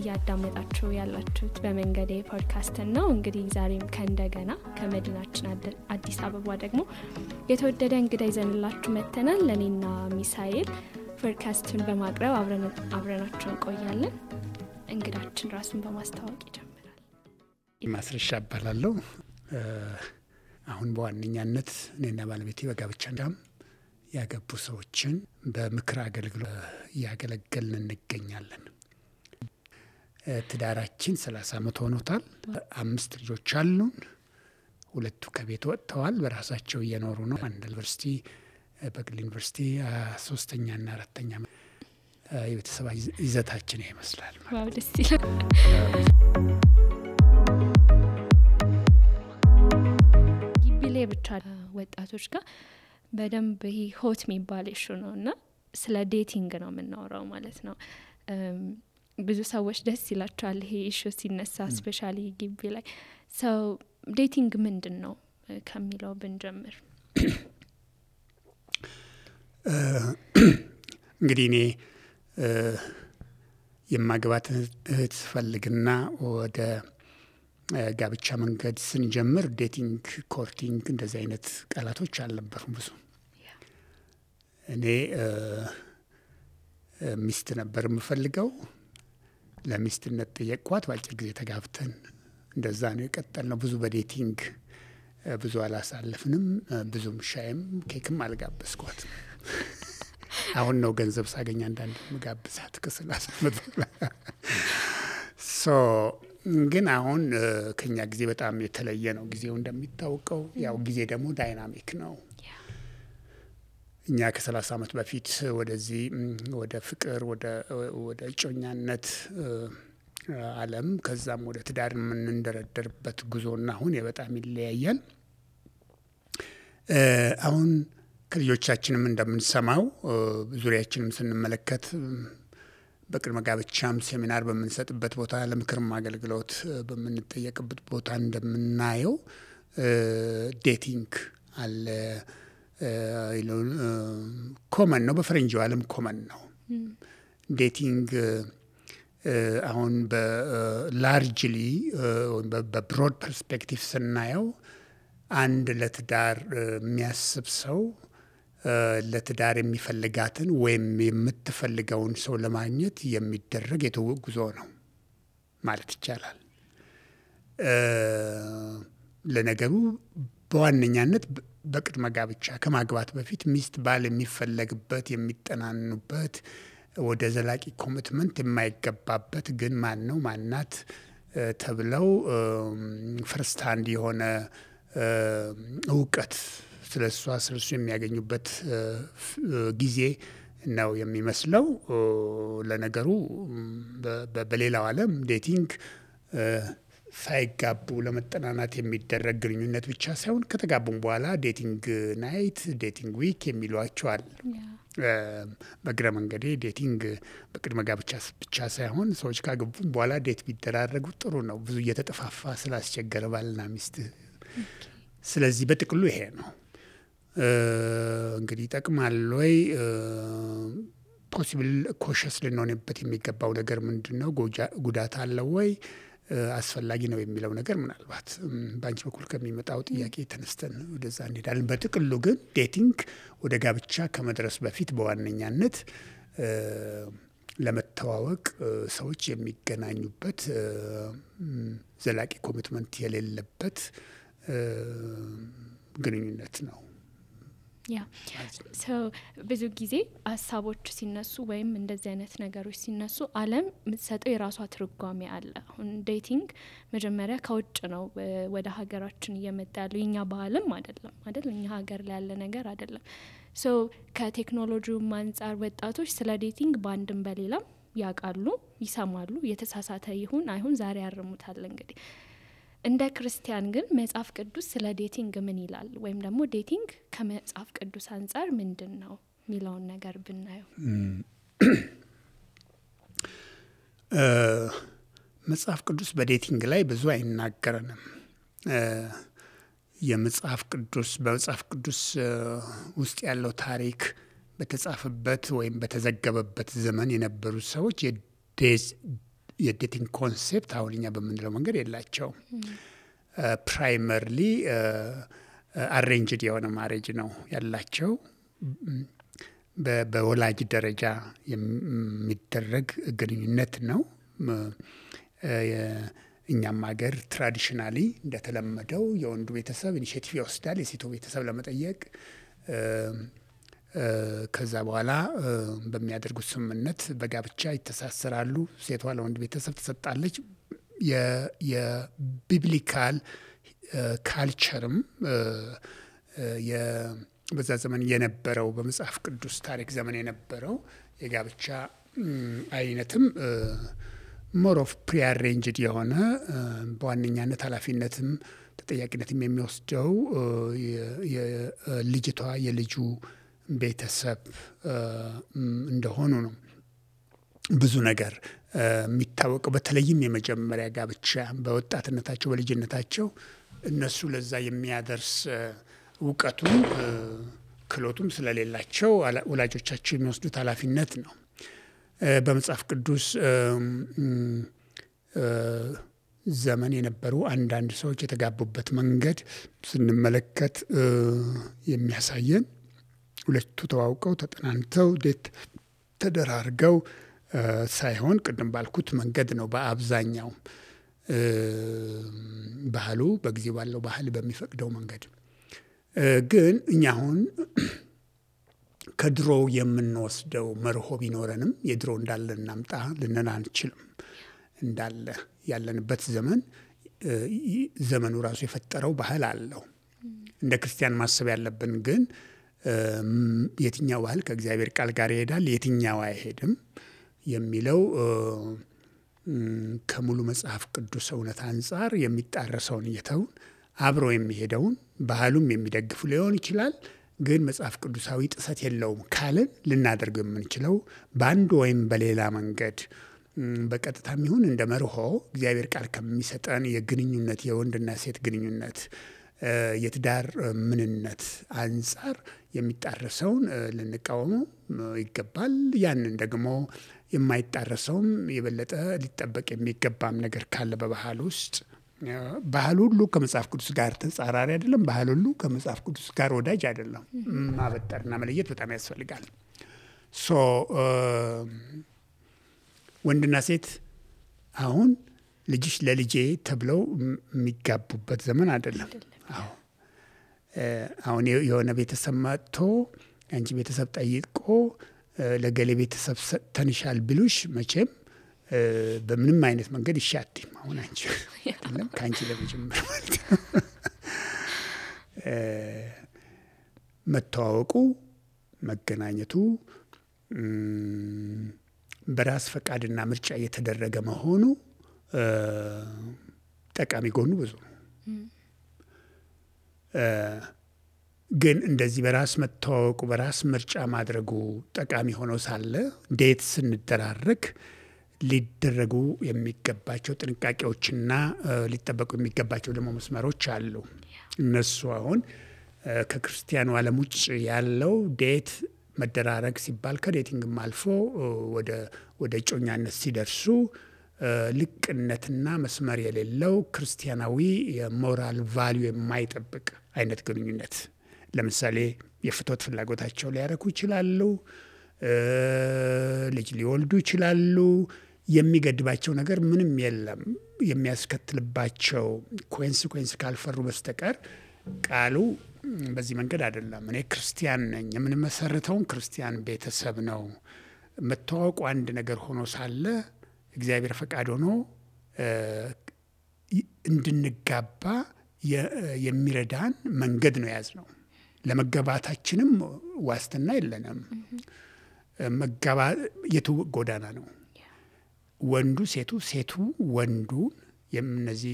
ያዳመጣችሁ ያላችሁት በመንገዴ ፖድካስት ነው። እንግዲህ ዛሬም ከእንደገና ከመዲናችን አዲስ አበባ ደግሞ የተወደደ እንግዳ ይዘንላችሁ መተናል። ለኔና ሚሳኤል ፖድካስቱን በማቅረብ አብረናችሁ እንቆያለን። እንግዳችን ራሱን በማስተዋወቅ ይጀምራል። ማስረሻ እባላለሁ። አሁን በዋነኛነት እኔና ባለቤቴ በጋብቻ ያገቡ ሰዎችን በምክር አገልግሎት ያገለገልን እንገኛለን። ትዳራችን 30 ዓመት ሆኖታል። 5 ልጆች አሉን። 2 ከቤት ወጥተዋል፣ በራሳቸው እየኖሩ ነው። አንድ ዩኒቨርሲቲ በግል ዩኒቨርሲቲ 3ኛና 4ኛ የቤተሰብ ይዘታችን ይመስላል። ዋው ደስ ይላል። ግቢሌ ብቻ ወጣቶች ጋር በደንብ ይሄ ሆት የሚባል ኢሹ ነውና ስለ ዴቲንግ ነው የምናወራው ማለት ነው። ብዙ ሰዎች ደስ ይላቸዋል ይሄ ኢሹ ሲነሳ ስፔሻሊ ግቢ ላይ። ሰው ዴቲንግ ምንድነው ከሚለው ብንጀምር። እንግዲህ እኔ የማግባት እህት ፈልግና ወደ ጋብቻ መንገድ ስንጀምር ዴቲንግ፣ ኮርቲንግ እንደዚህ አይነት ቃላቶች አልነበሩም ብዙ። እኔ ሚስት ነበር የምፈልገው። ለሚስትነት ጠየቅኳት። በአጭር ጊዜ ተጋብተን እንደዛ ነው የቀጠልነው። ብዙ በዴቲንግ ብዙ አላሳለፍንም። ብዙም ሻይም ኬክም አልጋበዝኳት። አሁን ነው ገንዘብ ሳገኝ አንዳንድ መጋብዛት ከ30 ዓመት ግን አሁን ከኛ ጊዜ በጣም የተለየ ነው። ጊዜው እንደሚታወቀው ያው ጊዜ ደግሞ ዳይናሚክ ነው። እኛ ከ30 ዓመት በፊት ወደዚህ ወደ ፍቅር ወደ እጮኛነት ዓለም ከዛም ወደ ትዳር የምንደረደርበት ጉዞና አሁን በጣም ይለያያል። አሁን ከልጆቻችንም እንደምንሰማው ዙሪያችንም ስንመለከት በቅድመ ጋብቻም ሴሚናር በምንሰጥበት ቦታ ለምክርም አገልግሎት በምንጠየቅበት ቦታ እንደምናየው ዴቲንግ አለ። ኮመን ነው፣ በፈረንጆው ዓለም ኮመን ነው ዴቲንግ። አሁን በላርጅሊ በብሮድ ፐርስፔክቲቭ ስናየው አንድ ለትዳር የሚያስብ ሰው ለትዳር የሚፈልጋትን ወይም የምትፈልገውን ሰው ለማግኘት የሚደረግ የትውውቅ ጉዞ ነው ማለት ይቻላል። ለነገሩ በዋነኛነት በቅድመ ጋብቻ ከማግባት በፊት ሚስት ባል የሚፈለግበት የሚጠናኑበት ወደ ዘላቂ ኮሚትመንት የማይገባበት ግን ማን ነው ማናት ተብለው ፈርስት ሃንድ የሆነ እውቀት ስለሷ ስለሱ የሚያገኙበት ጊዜ ነው የሚመስለው። ለነገሩ በሌላው ዓለም ዴቲንግ ሳይጋቡ ለመጠናናት የሚደረግ ግንኙነት ብቻ ሳይሆን ከተጋቡም በኋላ ዴቲንግ ናይት፣ ዴቲንግ ዊክ የሚሏቸዋል። በግረ መንገዴ ዴቲንግ በቅድመ ጋብቻ ብቻ ሳይሆን ሰዎች ካገቡም በኋላ ዴት ቢደራረጉ ጥሩ ነው፣ ብዙ እየተጠፋፋ ስላስቸገረ ባልና ሚስት። ስለዚህ በጥቅሉ ይሄ ነው። እንግዲህ ይጠቅማል ወይ? ፖሲብል ኮሸስ ልንሆንበት የሚገባው ነገር ምንድነው? ጉዳት አለው ወይ? አስፈላጊ ነው የሚለው ነገር ምናልባት በአንቺ በኩል ከሚመጣው ጥያቄ ተነስተን ወደዛ እንሄዳለን። በጥቅሉ ግን ዴቲንግ ወደ ጋብቻ ከመድረስ በፊት በዋነኛነት ለመተዋወቅ ሰዎች የሚገናኙበት ዘላቂ ኮሚትመንት የሌለበት ግንኙነት ነው። ብዙ ጊዜ ሀሳቦች ሲነሱ ወይም እንደዚህ አይነት ነገሮች ሲነሱ ዓለም የምትሰጠው የራሷ ትርጓሜ አለ። አሁን ዴቲንግ መጀመሪያ ከውጭ ነው ወደ ሀገራችን እየመጣ ያለው፣ የኛ ባህልም አይደለም እኛ ሀገር ላይ ያለ ነገር አይደለም። ከቴክኖሎጂው አንጻር ወጣቶች ስለ ዴቲንግ በአንድም በሌላም ያውቃሉ፣ ይሰማሉ። የተሳሳተ ይሁን አይሁን ዛሬ ያርሙታል። እንግዲህ እንደ ክርስቲያን ግን መጽሐፍ ቅዱስ ስለ ዴቲንግ ምን ይላል? ወይም ደግሞ ዴቲንግ ከመጽሐፍ ቅዱስ አንጻር ምንድነው የሚለውን ነገር ብናየው። መጽሐፍ ቅዱስ በዴቲንግ ላይ ብዙ አይናገረንም። በመጽሐፍ ቅዱስ ውስጥ ያለው ታሪክ በተጻፈበት ወይም በተዘገበበት ዘመን የነበሩ ሰዎች የዴቲንግ ኮንሴፕት አሁን እኛ በምንለው መንገድ የላቸውም። ፕራይመርሊ አሬንጅድ የሆነ ማሬጅ ነው ያላቸው። በወላጅ ደረጃ የሚደረግ ግንኙነት ነው። እኛም ሀገር ትራዲሽናሊ እንደተለመደው የወንዱ ቤተሰብ ኢኒሼቲቭ ይወስዳል የሴቱ ቤተሰብ ለመጠየቅ። ከዛ በኋላ በሚያደርጉት ስምምነት በጋብቻ ይተሳሰራሉ። ሴቷ ለወንድ ቤተሰብ ትሰጣለች። የቢብሊካል ካልቸርም በዛ ዘመን የነበረው በመጽሐፍ ቅዱስ ታሪክ ዘመን የነበረው የጋብቻ አይነትም ሞር ኦፍ ፕሪአሬንጅድ የሆነ በዋነኛነት ኃላፊነትም ተጠያቂነትም የሚወስደው የልጅቷ የልጁ ቤተሰብ እንደሆኑ ነው። ብዙ ብዙ የሚታወቀው በተለይም የመጀመሪያ ጋብቻ በወጣትነታቸው በልጅነታቸው እነሱ ለዛ የሚያደርስ እውቀቱም ክሎቱም ስለሌላቸው ወላጆቻቸው የሚወስዱት ኃላፊነት ነው። በመጽሐፍ ቅዱስ ዘመን የነበሩ አንዳንድ ሰዎች የተጋቡበት መንገድ ስንመለከት የሚያሳየን ሁለቱ ተዋውቀው ተጠናንተው ዴት ተደራርገው ሳይሆን ቅድም ባልኩት መንገድ ነው። በአብዛኛው ባህሉ በጊዜው ባለው ባህል በሚፈቅደው መንገድ ግን እኛ አሁን ከድሮ የምንወስደው መርሆ ቢኖረንም የድሮ እንዳለ እናምጣ ልንል አንችልም። እንዳለ ያለንበት ዘመኑ ራሱ የፈጠረው ባህል አለው። እንደ ክርስቲያን ማሰብ ያለብን ግን የትኛው ባህል ከእግዚአብሔር ቃል ጋር ይሄዳል የትኛው አይሄድም የሚለው ከሙሉ መጽሐፍ ቅዱስ እውነት አንፃር የሚጣረሰውን እየተውን አብሮ የሚሄደውን ባህሉም የሚደግፉ ሊሆን ይችላል። ግን መጽሐፍ ቅዱሳዊ ጥሰት የለውም ካልን ልናደርገው የምንችለው በአንድ ወይም በሌላ መንገድ በቀጥታም ይሁን እንደ መርሆ እግዚአብሔር ቃል ከሚሰጠን የግንኙነት የወንድና ሴት ግንኙነት የትዳር ምንነት አንፃር የሚጣረሰውን ልንቃወመው ይገባል። ያንን ደግሞ የማይጣረሰውም የበለጠ ሊጠበቅ የሚገባም ነገር ካለ በባህል ውስጥ ባህል ሁሉ ከመጽሐፍ ቅዱስ ጋር ተጻራሪ አይደለም። ባህል ሁሉ ከመጽሐፍ ቅዱስ ጋር ወዳጅ አይደለም። ማበጠርና መለየት በጣም ያስፈልጋል። ወንድና ሴት አሁን ልጅሽ ለልጄ ተብለው የሚጋቡበት ዘመን አይደለም። አሁን የሆነ ቤተሰብ መጥቶ አንቺ ቤተሰብ ጠይቆ ለገሌ ቤተሰብ ሰጥተንሻል ቢሉሽ መቼም በምንም አይነት መንገድ ይሻትም። አሁን አንቺ አይደለም ካንቺ ለመጀመር ማለት ነው። መተዋወቁ መገናኘቱ በራስ ፈቃድና ምርጫ እየተደረገ መሆኑ ጠቃሚ ጎኑ ብዙ ነው። ግን እንደዚህ በራስ መተዋወቁ በራስ ምርጫ ማድረጉ ጠቃሚ ሆኖ ሳለ ዴት ስንደራረግ ሊደረጉ የሚገባቸው ጥንቃቄዎችና ሊጠበቁ የሚገባቸው ደግሞ መስመሮች አሉ። እነሱ አሁን ከክርስቲያኑ ዓለም ውጭ ያለው ዴት መደራረግ ሲባል ከዴቲንግም አልፎ ወደ እጮኛነት ሲደርሱ ልቅነትና መስመር የሌለው ክርስቲያናዊ የሞራል ቫልዩ የማይጠብቅ አይነት ግንኙነት ለምሳሌ የፍትወት ፍላጎታቸው ሊያረኩ ይችላሉ። ልጅ ሊወልዱ ይችላሉ። የሚገድባቸው ነገር ምንም የለም። የሚያስከትልባቸው ኮንሲኩዌንስ ካልፈሩ በስተቀር ቃሉ በዚህ መንገድ አይደለም። እኔ ክርስቲያን ነኝ የምንመሰርተውን ክርስቲያን ቤተሰብ ነው። መተዋወቁ አንድ ነገር ሆኖ ሳለ እግዚአብሔር ፈቃድ ሆኖ እንድንጋባ የሚረዳን መንገድ ነው የያዝነው። ለመጋባታችንም ዋስትና የለንም። የትውውቅ ጎዳና ነው። ወንዱ ሴቱ ሴቱ ወንዱ እነዚህ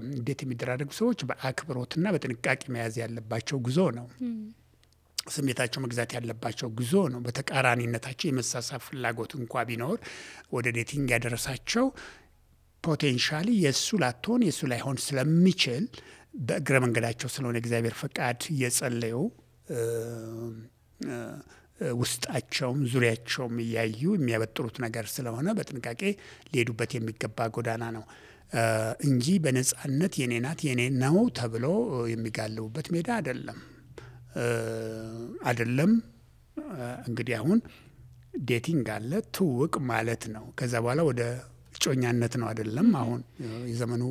እንዴት የሚደራረጉ ሰዎች በአክብሮትና በጥንቃቄ መያዝ ያለባቸው ጉዞ ነው። ስሜታቸው መግዛት ያለባቸው ጉዞ ነው። በተቃራኒነታቸው የመሳሳብ ፍላጎት እንኳ ቢኖር ወደ ዴቲንግ ያደረሳቸው ፖቴንሻሊ የእሱ ላትሆን የእሱ ላይሆን ስለሚችል በእግረ መንገዳቸው ስለሆነ እግዚአብሔር ፈቃድ እየጸለዩ ውስጣቸውም ዙሪያቸውም እያዩ የሚያበጥሩት ነገር ስለሆነ በጥንቃቄ ሊሄዱበት የሚገባ ጎዳና ነው እንጂ በነጻነት የኔ ናት የኔ ነው ተብሎ የሚጋልቡበት ሜዳ አይደለም። እንግዲህ አሁን ዴቲንግ አለ፣ ትውውቅ ማለት ነው። ከዛ በኋላ ወደ እጮኛነት ነው አይደለም አሁን የዘመኑ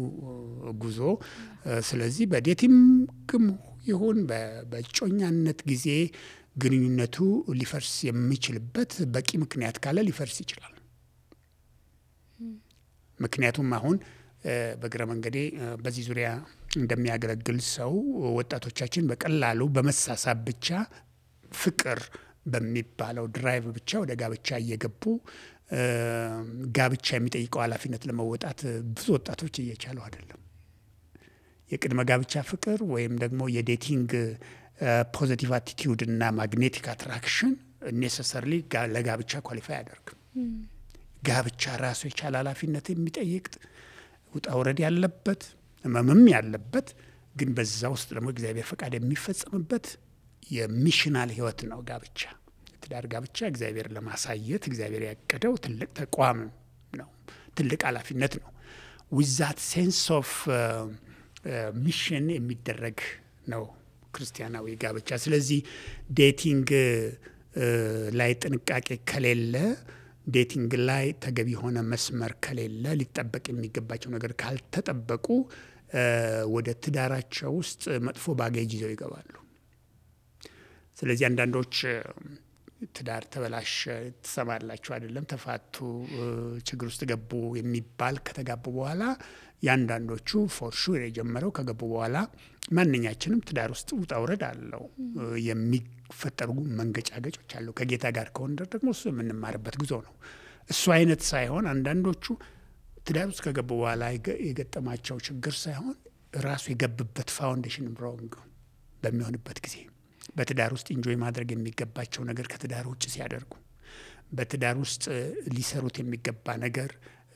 ጉዞ። ስለዚህ በዴቲንግም ይሁን በእጮኛነት ጊዜ ግንኙነቱ ሊፈርስ የሚችልበት በቂ ምክንያት ካለ ሊፈርስ ይችላል። ምክንያቱም አሁን በግረ መንገዴ በዚህ ዙሪያ እንደሚያገለግል ሰው ወጣቶቻችን በቀላሉ በመሳሳብ ብቻ ፍቅር በሚባለው ድራይቭ ብቻ ወደ ጋብቻ እየገቡ ጋብቻ የሚጠይቀው ኃላፊነት ለመወጣት ብዙ ወጣቶች እየቻሉ አይደለም። የቅድመ ጋብቻ ፍቅር ወይም ደግሞ የዴቲንግ ፖዚቲቭ አቲቲዩድ እና ማግኔቲክ አትራክሽን ኔሰሰርሊ ለጋብቻ ኳሊፋይ አያደርግም። ጋብቻ ራሱ የቻለ ኃላፊነት የሚጠይቅ ውጣ ውረድ ያለበት ህመምም ያለበት ግን በዛ ውስጥ ደግሞ እግዚአብሔር ፈቃድ የሚፈጸምበት የሚሽናል ህይወት ነው ጋብቻ። ትዳር ጋብቻ እግዚአብሔር ለማሳየት እግዚአብሔር ያቀደው ትልቅ ተቋም ነው፣ ትልቅ ኃላፊነት ነው። ዊዛት ሴንስ ኦፍ ሚሽን የሚደረግ ነው ክርስቲያናዊ ጋብቻ። ስለዚህ ዴቲንግ ላይ ጥንቃቄ ከሌለ፣ ዴቲንግ ላይ ተገቢ የሆነ መስመር ከሌለ፣ ሊጠበቅ የሚገባቸው ነገር ካልተጠበቁ ወደ ትዳራቸው ውስጥ መጥፎ ባጌጅ ይዘው ይገባሉ። ስለዚህ አንዳንዶች ትዳር ተበላሸ ትሰማላችሁ አይደለም፣ ተፋቱ፣ ችግር ውስጥ ገቡ የሚባል ከተጋቡ በኋላ ያንዳንዶቹ ፎር ሹር የጀመረው ከገቡ በኋላ ማንኛችንም ትዳር ውስጥ ውጣ ውረድ አለው፣ የሚፈጠሩ መንገጫገጮች አሉ። ከጌታ ጋር ከሆነ ደግሞ እሱ የምንማርበት ጉዞ ነው። እሱ አይነት ሳይሆን አንዳንዶቹ ትዳር ውስጥ ከገቡ በኋላ የገጠማቸው ችግር ሳይሆን ራሱ የገብበት ፋውንዴሽን ሮንግ በሚሆንበት ጊዜ በትዳር ውስጥ ኢንጆይ ማድረግ የሚገባቸው ነገር ከትዳር ውጭ ሲያደርጉ፣ በትዳር ውስጥ ሊሰሩት የሚገባ ነገር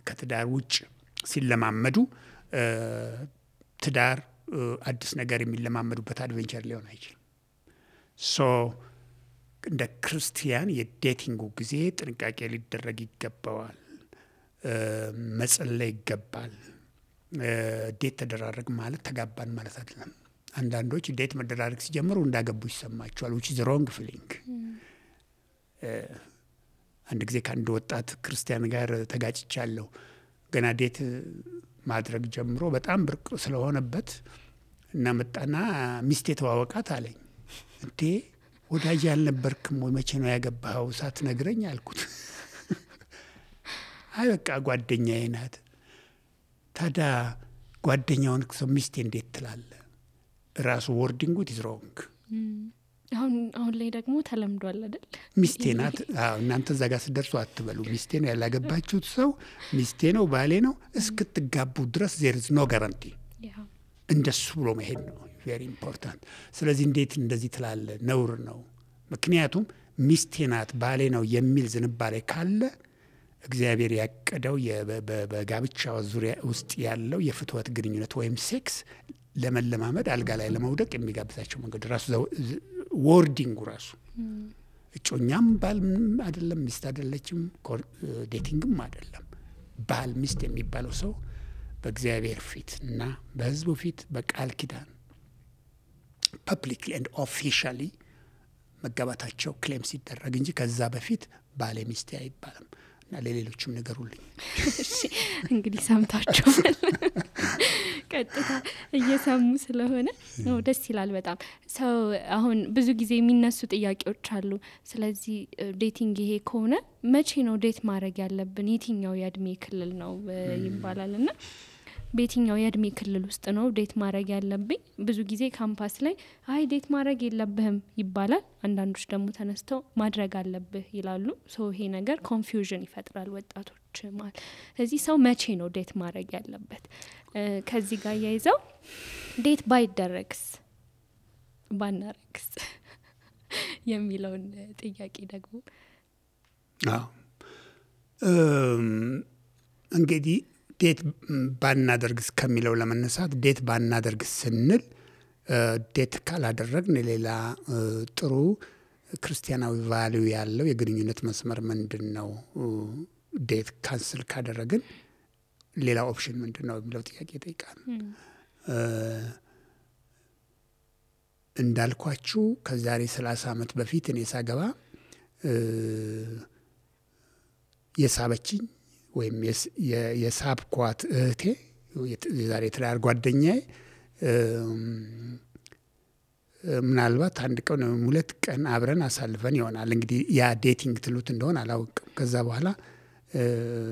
ከትዳር ውጭ ሲለማመዱ፣ ትዳር አዲስ ነገር የሚለማመዱበት አድቬንቸር ሊሆን አይችልም። ሶ እንደ ክርስቲያን የዴቲንጉ ጊዜ ጥንቃቄ ሊደረግ ይገባዋል። መጸለይ ይገባል። ዴት ተደራረግ ማለት ተጋባን ማለት አይደለም። አንዳንዶች ዴት መደራረግ ሲጀምሩ እንዳገቡ ይሰማቸዋል። which is wrong feeling። አንድ ጊዜ ከአንድ ወጣት ክርስቲያን ጋር ተጋጭቻለሁ። ገና ዴት ማድረግ ጀምሮ በጣም ብርቅ ስለሆነበት እና መጣና ሚስቴ ተዋወቃት አለኝ። እንዴ ወዳጅ ያልነበርክም ወይ? መቼ ነው ያገባኸው ሳትነግረኝ አልኩት። አይ በቃ ጓደኛዬ ናት። ታዲያ ጓደኛውን ሰው ሚስቴ እንዴት ትላለህ? ራሱ ወርዲንጉ ኢዝ ሮንግ። አሁን ላይ ደግሞ ተለምዷል አይደል? ሚስቴ ናት። እናንተ እዛ ጋር ስደርሱ አትበሉ ሚስቴ ነው ያላገባችሁት ሰው ሚስቴ ነው ባሌ ነው እስክትጋቡ ድረስ there is no guarantee። እንደሱ ብሎ መሄድ ነው ቬሪ ኢምፖርታንት። ስለዚህ እንዴት እንደዚህ ትላለህ? ነውር ነው። ምክንያቱም ሚስቴ ናት ባሌ ነው የሚል ዝንባሌ ካለ እግዚአብሔር ያቀደው በጋብቻው ዙሪያ ውስጥ ያለው የፍትወት ግንኙነት ወይም ሴክስ ለመለማመድ አልጋ ላይ ለመውደቅ የሚጋብዛቸው መንገድ ራሱ ወርዲንጉ ራሱ እጮኛም ባል አይደለም፣ ሚስት አይደለችም፣ ዴቲንግም አይደለም። ባል ሚስት የሚባለው ሰው በእግዚአብሔር ፊት እና በሕዝቡ ፊት በቃል ኪዳን ፐብሊክሊ ኤንድ ኦፊሻሊ መጋባታቸው ክሌም ሲደረግ እንጂ ከዛ በፊት ባሌ ሚስቴ አይባልም። እና ለሌሎችም ነገሩልኝ። እንግዲህ ሰምታችኋል። ቀጥታ እየሰሙ ስለሆነ ደስ ይላል በጣም። ሰው አሁን ብዙ ጊዜ የሚነሱ ጥያቄዎች አሉ። ስለዚህ ዴቲንግ ይሄ ከሆነ መቼ ነው ዴት ማድረግ ያለብን? የትኛው የእድሜ ክልል ነው ይባላል እና በየትኛው የእድሜ ክልል ውስጥ ነው ዴት ማድረግ ያለብኝ? ብዙ ጊዜ ካምፓስ ላይ አይ ዴት ማድረግ የለብህም ይባላል። አንዳንዶች ደግሞ ተነስተው ማድረግ አለብህ ይላሉ። ይሄ ነገር ኮንፊውዥን ይፈጥራል ወጣቶች ማለት። ስለዚህ ሰው መቼ ነው ዴት ማድረግ ያለበት? ከዚህ ጋር ያይዘው ዴት ባይደረግስ ባናረግስ የሚለውን ጥያቄ ደግሞ እንግዲህ ዴት ባናደርግስ ከሚለው ለመነሳት ዴት ባናደርግስ ስንል ዴት ካላደረግን ሌላ ጥሩ ክርስቲያናዊ ቫልዩ ያለው የግንኙነት መስመር ምንድነው? ዴት ካንስል ካደረግን ሌላ ኦፕሽን ምንድነው የሚለው ጥያቄ ይጠይቃል። እንዳልኳችሁ ከዛሬ 30 ዓመት በፊት እኔ ሳገባ የሳበችኝ ወይም የሳብኳት እህቴ የዛሬ ትዳር ጓደኛዬ ምናልባት አንድ ቀን ወይም 2 ቀን አብረን አሳልፈን ይሆናል። እንግዲህ ያ ዴቲንግ ትሉት እንደሆነ አላውቅም። ከዛ በኋላ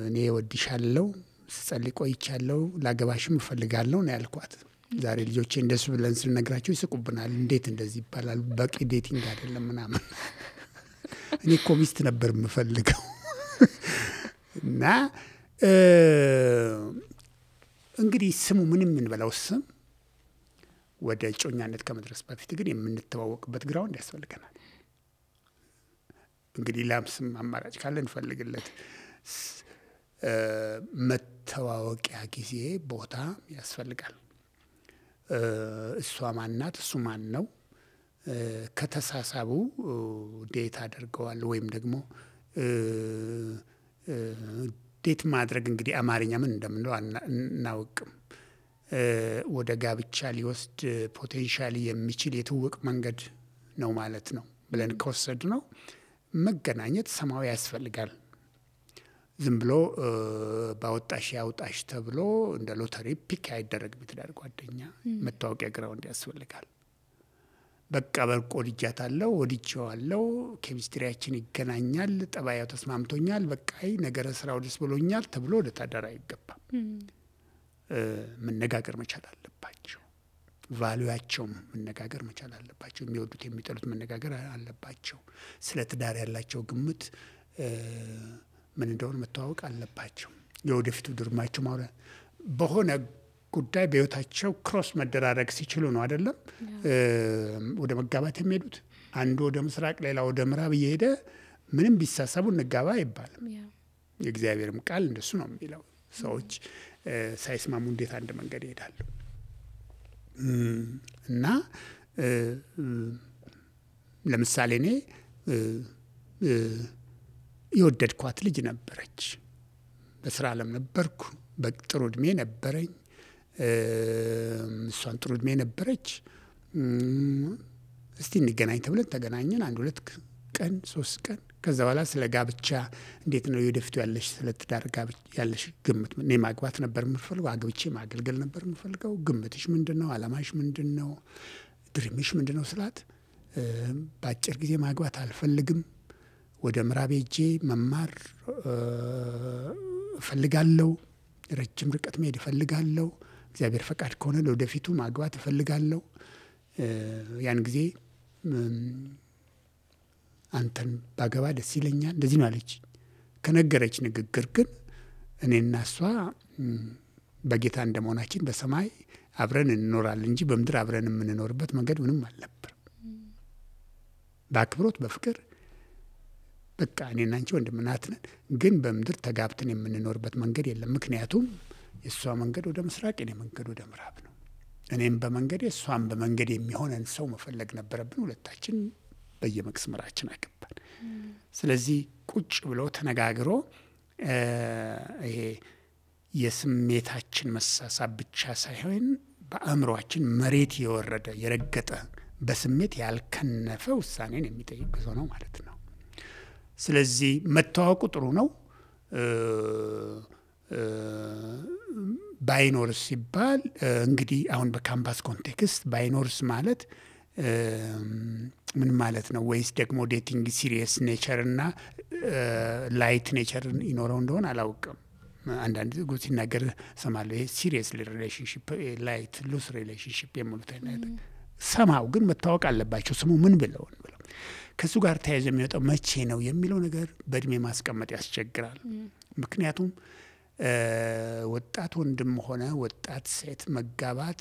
እኔ ወድሻለሁ፣ ስጸልይ ቆይቻለሁ፣ ላገባሽም እፈልጋለሁ ነው ያልኳት። ዛሬ ልጆቼ እንደሱ ብለን ስንነግራቸው ይስቁብናል። እንዴት እንደዚህ ይባላል? በቂ ዴቲንግ አይደለም ምናምን። እኔ እኮ ሚስት ነበር የምፈልገው። እና እንግዲህ ስሙ ምንም የምንበላው ስም ወደ እጮኛነት ከመድረስ በፊት ግን የምንተዋወቅበት ግራውንድ ያስፈልገናል። እንግዲህ ላም ስም አማራጭ ካለ እንፈልግለት። መተዋወቂያ ጊዜ ቦታ ያስፈልጋል። እሷ ማናት? እሱ ማን ነው? ከተሳሳቡ ዴት አድርገዋል ወይም ደግሞ ዴት ማድረግ እንግዲህ አማርኛ ምን እንደምንለው አናውቅም። ወደ ጋብቻ ሊወስድ ፖቴንሻሊ የሚችል የትውውቅ መንገድ ነው ማለት ነው ብለን ከወሰድ ነው መገናኘት ሰማያዊ ያስፈልጋል። ዝም ብሎ ባወጣሽ ያውጣሽ ተብሎ እንደ ሎተሪ ፒክ አይደረግም። የትዳር ጓደኛ መታወቂያ ግራውንድ ያስፈልጋል። በቃ በርቆ ወድጃታለሁ፣ ወድጄዋለሁ፣ ኬሚስትሪያችን ይገናኛል፣ ጠባያው ተስማምቶኛል፣ በቃ ነገረ ስራው ደስ ብሎኛል ተብሎ ወደ ታዳር አይገባም። መነጋገር መቻል አለባቸው። ቫልዩአቸውም መነጋገር መቻል አለባቸው። የሚወዱት የሚጠሉት መነጋገር አለባቸው። ስለ ትዳር ያላቸው ግምት ምን እንደሆነ መተዋወቅ አለባቸው። የወደፊቱ ድርማቸው ማውራት በሆነ ጉዳይ በህይወታቸው ክሮስ መደራረግ ሲችሉ ነው አይደለም ወደ መጋባት የሚሄዱት። አንዱ ወደ ምስራቅ ሌላ ወደ ምዕራብ እየሄደ ምንም ቢሳሰቡ እንጋባ አይባልም። የእግዚአብሔርም ቃል እንደሱ ነው የሚለው። ሰዎች ሳይስማሙ እንዴት አንድ መንገድ ይሄዳሉ? እና ለምሳሌ እኔ የወደድኳት ልጅ ነበረች። በስራ ዓለም ነበርኩ። በጥሩ እድሜ ነበረኝ። እሷን ጥሩ እድሜ ነበረች። እስቲ እንገናኝ ተብለን ተገናኘን። 1-2 ቀን 3 ቀን ከዛ በኋላ ስለ ጋብቻ እንዴት ነው የወደፊቱ ያለሽ ስለ ትዳር ጋብቻ ያለሽ ግምት? እኔ ማግባት ነበር የምፈልገው፣ አግብቼ ማገልገል ነበር የምፈልገው። ግምትሽ ምንድነው? አላማሽ ምንድነው? ድሪምሽ ምንድነው ስላት በአጭር ጊዜ ማግባት አልፈልግም፣ ወደ ምዕራብ ሄጄ መማር እፈልጋለሁ፣ ረጅም ርቀት መሄድ እፈልጋለሁ፣ እግዚአብሔር ፈቃድ ከሆነ ለወደፊቱ ማግባት እፈልጋለሁ። ያን ጊዜ አንተን ባገባ ደስ ይለኛል፣ እንደዚህ ነው አለች። ከነገረች ንግግር ግን እኔና እሷ በጌታ እንደመሆናችን በሰማይ አብረን እንኖራለን እንጂ በምድር አብረን የምንኖርበት መንገድ ምንም አልነበር። በአክብሮት በፍቅር በቃ እኔና አንቺ ወንድምና እህት ነን፣ ግን በምድር ተጋብተን የምንኖርበት መንገድ የለም። ምክንያቱም የእሷ መንገድ ወደ ምስራቅ፣ የኔ መንገድ ወደ ምዕራብ ነው። እኔም በመንገዴ እሷም በመንገድ የሚሆነን ሰው መፈለግ ነበረብን። ሁለታችን በየመስመራችን አገባን። ስለዚህ ቁጭ ብሎ ተነጋግሮ ይሄ የስሜታችን መሳሳብ ብቻ ሳይሆን በአእምሯችን መሬት የወረደ የረገጠ በስሜት ያልከነፈ ውሳኔን የሚጠይቅ ጉዞ ነው ማለት ነው። ስለዚህ መተዋወቁ ጥሩ ነው። ባይኖርስ ሲባል እንግዲህ አሁን በካምፓስ ኮንቴክስት ባይኖርስ ማለት ምን ማለት ነው? ወይስ ደግሞ ዴቲንግ ሲሪየስ ኔቸር እና ላይት ኔቸር ይኖረው እንደሆነ አላውቅም። አንዳንድ ጉ ሲናገር ሰማለሁ። ይሄ ሲሪየስ ሪሌሽንሽፕ፣ ላይት ሉስ ሪሌሽንሽፕ የሚሉት አይነት ሰማው። ግን መታወቅ አለባቸው ስሙ ምን ብለው ከሱ ጋር ተያይዞ የሚወጣው መቼ ነው የሚለው ነገር በእድሜ ማስቀመጥ ያስቸግራል። ምክንያቱም ወጣት ወንድም ሆነ ወጣት ሴት መጋባት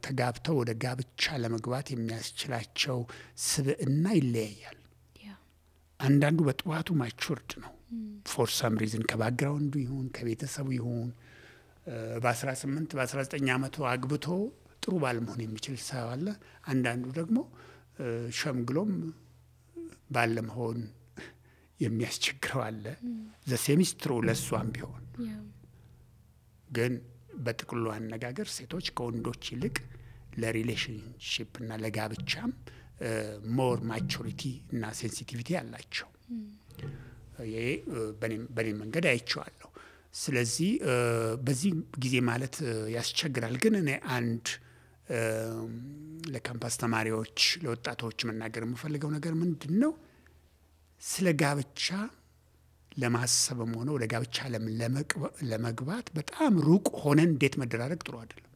ተጋብተው ወደ ጋብቻ ለመግባት የሚያስችላቸው ስብዕና ይለያያል። አንዳንዱ በጥዋቱ ማቹርድ ነው ፎር ሳም ሪዝን ከባክግራውንዱ ይሁን ከቤተሰቡ ይሁን በ18 በ19 ዓመቱ አግብቶ ጥሩ ባል መሆን የሚችል ሰው አለ። አንዳንዱ ደግሞ ሸምግሎም ባለመሆን የሚያስቸግረው አለ። ዘሴሚስትሩ ለሷም ቢሆን ግን በጥቅሉ አነጋገር ሴቶች ከወንዶች ይልቅ ለሪሌሽንሽፕ እና ለጋብቻም ሞር ማቹሪቲ እና ሴንሲቲቪቲ አላቸው። ይሄ በኔ መንገድ አይቼዋለሁ። ስለዚህ በዚህ ጊዜ ማለት ያስቸግራል። ግን እኔ አንድ ለካምፓስ ተማሪዎች ለወጣቶች መናገር የምፈልገው ነገር ምንድን ነው? ስለ ጋብቻ ለማሰብም ሆነ ወደ ጋብቻ ለመግባት በጣም ሩቅ ሆነን ዴት መደራረግ ጥሩ አይደለም።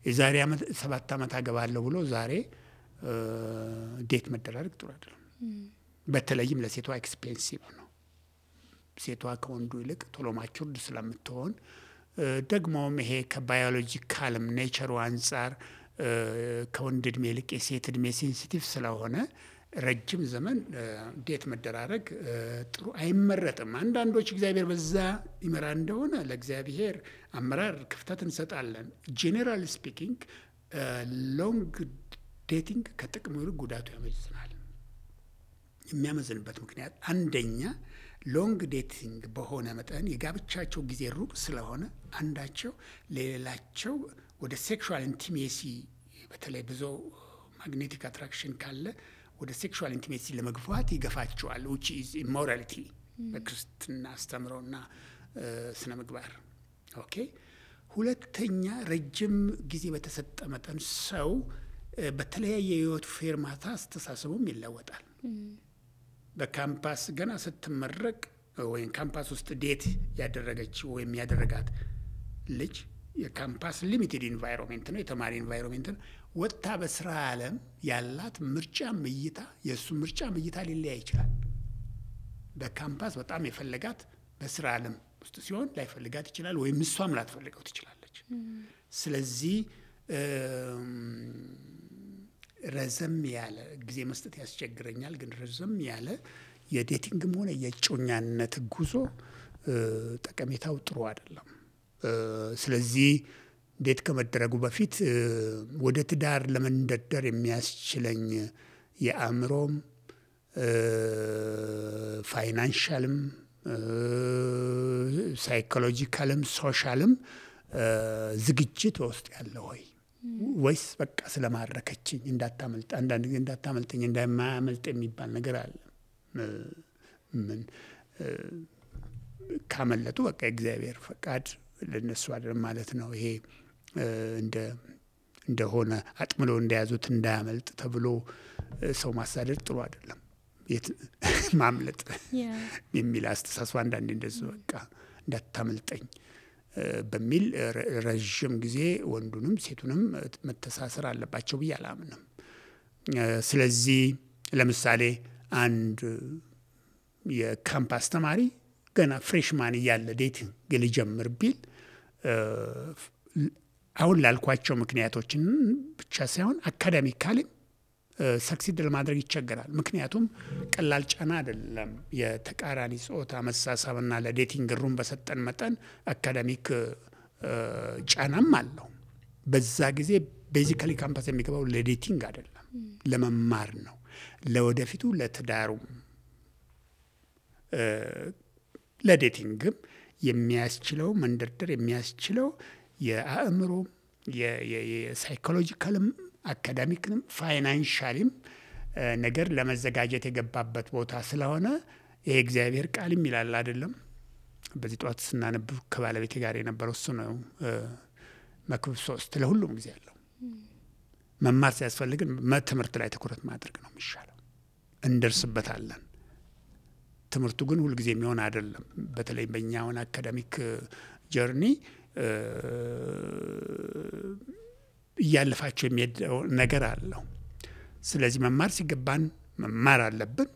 የዛሬ 7 ዓመት አገባለሁ ብሎ ዛሬ ዴት መደራረግ ጥሩ አይደለም። በተለይም ለሴቷ ኤክስፔንሲቭ ነው። ሴቷ ከወንዱ ይልቅ ቶሎ ማቹርድ ስለምትሆን ደግሞም ይሄ ከባዮሎጂካልም ኔቸሩ አንጻር ከወንድ እድሜ ይልቅ የሴት እድሜ ሴንሲቲቭ ስለሆነ ረጅም ዘመን ዴት መደራረግ ጥሩ አይመረጥም። አንዳንዶች እግዚአብሔር በዛ ይመራ እንደሆነ ለእግዚአብሔር አመራር ክፍተት እንሰጣለን። ጄኔራል ስፒኪንግ ሎንግ ዴቲንግ ከጥቅሙ ይልቅ ጉዳቱ ያመዝናል። የሚያመዝንበት ምክንያት አንደኛ ሎንግ ዴቲንግ በሆነ መጠን የጋብቻቸው ጊዜ ሩቅ ስለሆነ አንዳቸው ለሌላቸው ወደ ሴክሹዋል ኢንቲሜሲ በተለይ ብዙ ማግኔቲክ አትራክሽን ካለ ወደ ሴክሹዋል ኢንቲሜሲ ለመግፋት ይገፋቸዋል። which is immorality በክርስትና አስተምሮና ስነ ምግባር። ኦኬ። ሁለተኛ ረጅም ጊዜ በተሰጠ መጠን ሰው በተለያየ የህይወት ፌርማታ አስተሳሰቡም ይለወጣል። በካምፓስ ገና ስትመረቅ ወይም ካምፓስ ውስጥ ዴት ያደረገች ወይም ያደረጋት ልጅ የካምፓስ ሊሚትድ ኢንቫይሮንመንት ነው፣ የተማሪ ኢንቫይሮንመንት ነው። ወጥታ በስራ ዓለም ያላት ምርጫ እይታ የእሱ ምርጫ እይታ ሊለያይ ይችላል። በካምፓስ በጣም የፈለጋት በስራ ዓለም ውስጥ ሲሆን ላይፈልጋት ይችላል፣ ወይም እሷም ላትፈልገው ትችላለች። ስለዚህ ረዘም ያለ ጊዜ መስጠት ያስቸግረኛል። ግን ረዘም ያለ የዴቲንግም ሆነ የእጮኛነት ጉዞ ጠቀሜታው ጥሩ አይደለም። ስለዚህ ዴት ከመደረጉ በፊት ወደ ትዳር ለመንደርደር የሚያስችለኝ የአእምሮም ፋይናንሻልም ሳይኮሎጂካልም ሶሻልም ዝግጅት በውስጥ ያለ ወይስ በቃ ስለማረከችኝ እንዳታመልጥ አንዳንድ ጊዜ እንዳታመልጠኝ እንዳማያመልጥ የሚባል ነገር አለ። ምን ካመለጡ በቃ የእግዚአብሔር ፈቃድ ለነሱ አይደለም ማለት ነው። ይሄ እንደሆነ አጥምሎ እንደያዙት እንዳያመልጥ ተብሎ ሰው ማሳደድ ጥሩ አይደለም። ማምለጥ የሚል አስተሳሰብ አንዳንዴ እንደዚህ በቃ እንዳታመልጠኝ በሚል ረዥም ጊዜ ወንዱንም ሴቱንም መተሳሰር አለባቸው ብዬ አላምንም። ስለዚህ ለምሳሌ አንድ የካምፓስ ተማሪ ገና ፍሬሽማን እያለ ዴቲንግ ሊጀምር ቢል አሁን ላልኳቸው ምክንያቶችን ብቻ ሳይሆን አካዳሚካሊ ሰክሲድ ለማድረግ ይቸገራል። ምክንያቱም ቀላል ጫና አይደለም። የተቃራኒ ጾታ መሳሳብና ለዴቲንግ ሩም በሰጠን መጠን አካዳሚክ ጫናም አለው። በዛ ጊዜ ቤዚካሊ ካምፓስ የሚገባው ለዴቲንግ አይደለም፣ ለመማር ነው። ለወደፊቱ ለትዳሩም ለዴቲንግም የሚያስችለው መንደርደር የሚያስችለው የአእምሮ የሳይኮሎጂካልም አካዳሚክንም ፋይናንሻልም ነገር ለመዘጋጀት የገባበት ቦታ ስለሆነ ይሄ እግዚአብሔር ቃልም ይላል አይደለም። በዚህ ጠዋት ስናነብ ከባለቤቴ ጋር የነበረው እሱ ነው። መክብብ 3 ለሁሉም ጊዜ ያለው መማር ሲያስፈልግን ትምህርት ላይ ትኩረት ማድረግ ነው የሚሻለው። እንደርስበታለን። ትምህርቱ ግን ሁልጊዜ የሚሆን አይደለም። በተለይ በእኛውን አካዳሚክ ጀርኒ እያለፋቸው የሚሄደው ነገር አለው። ስለዚህ መማር ሲገባን መማር አለብን።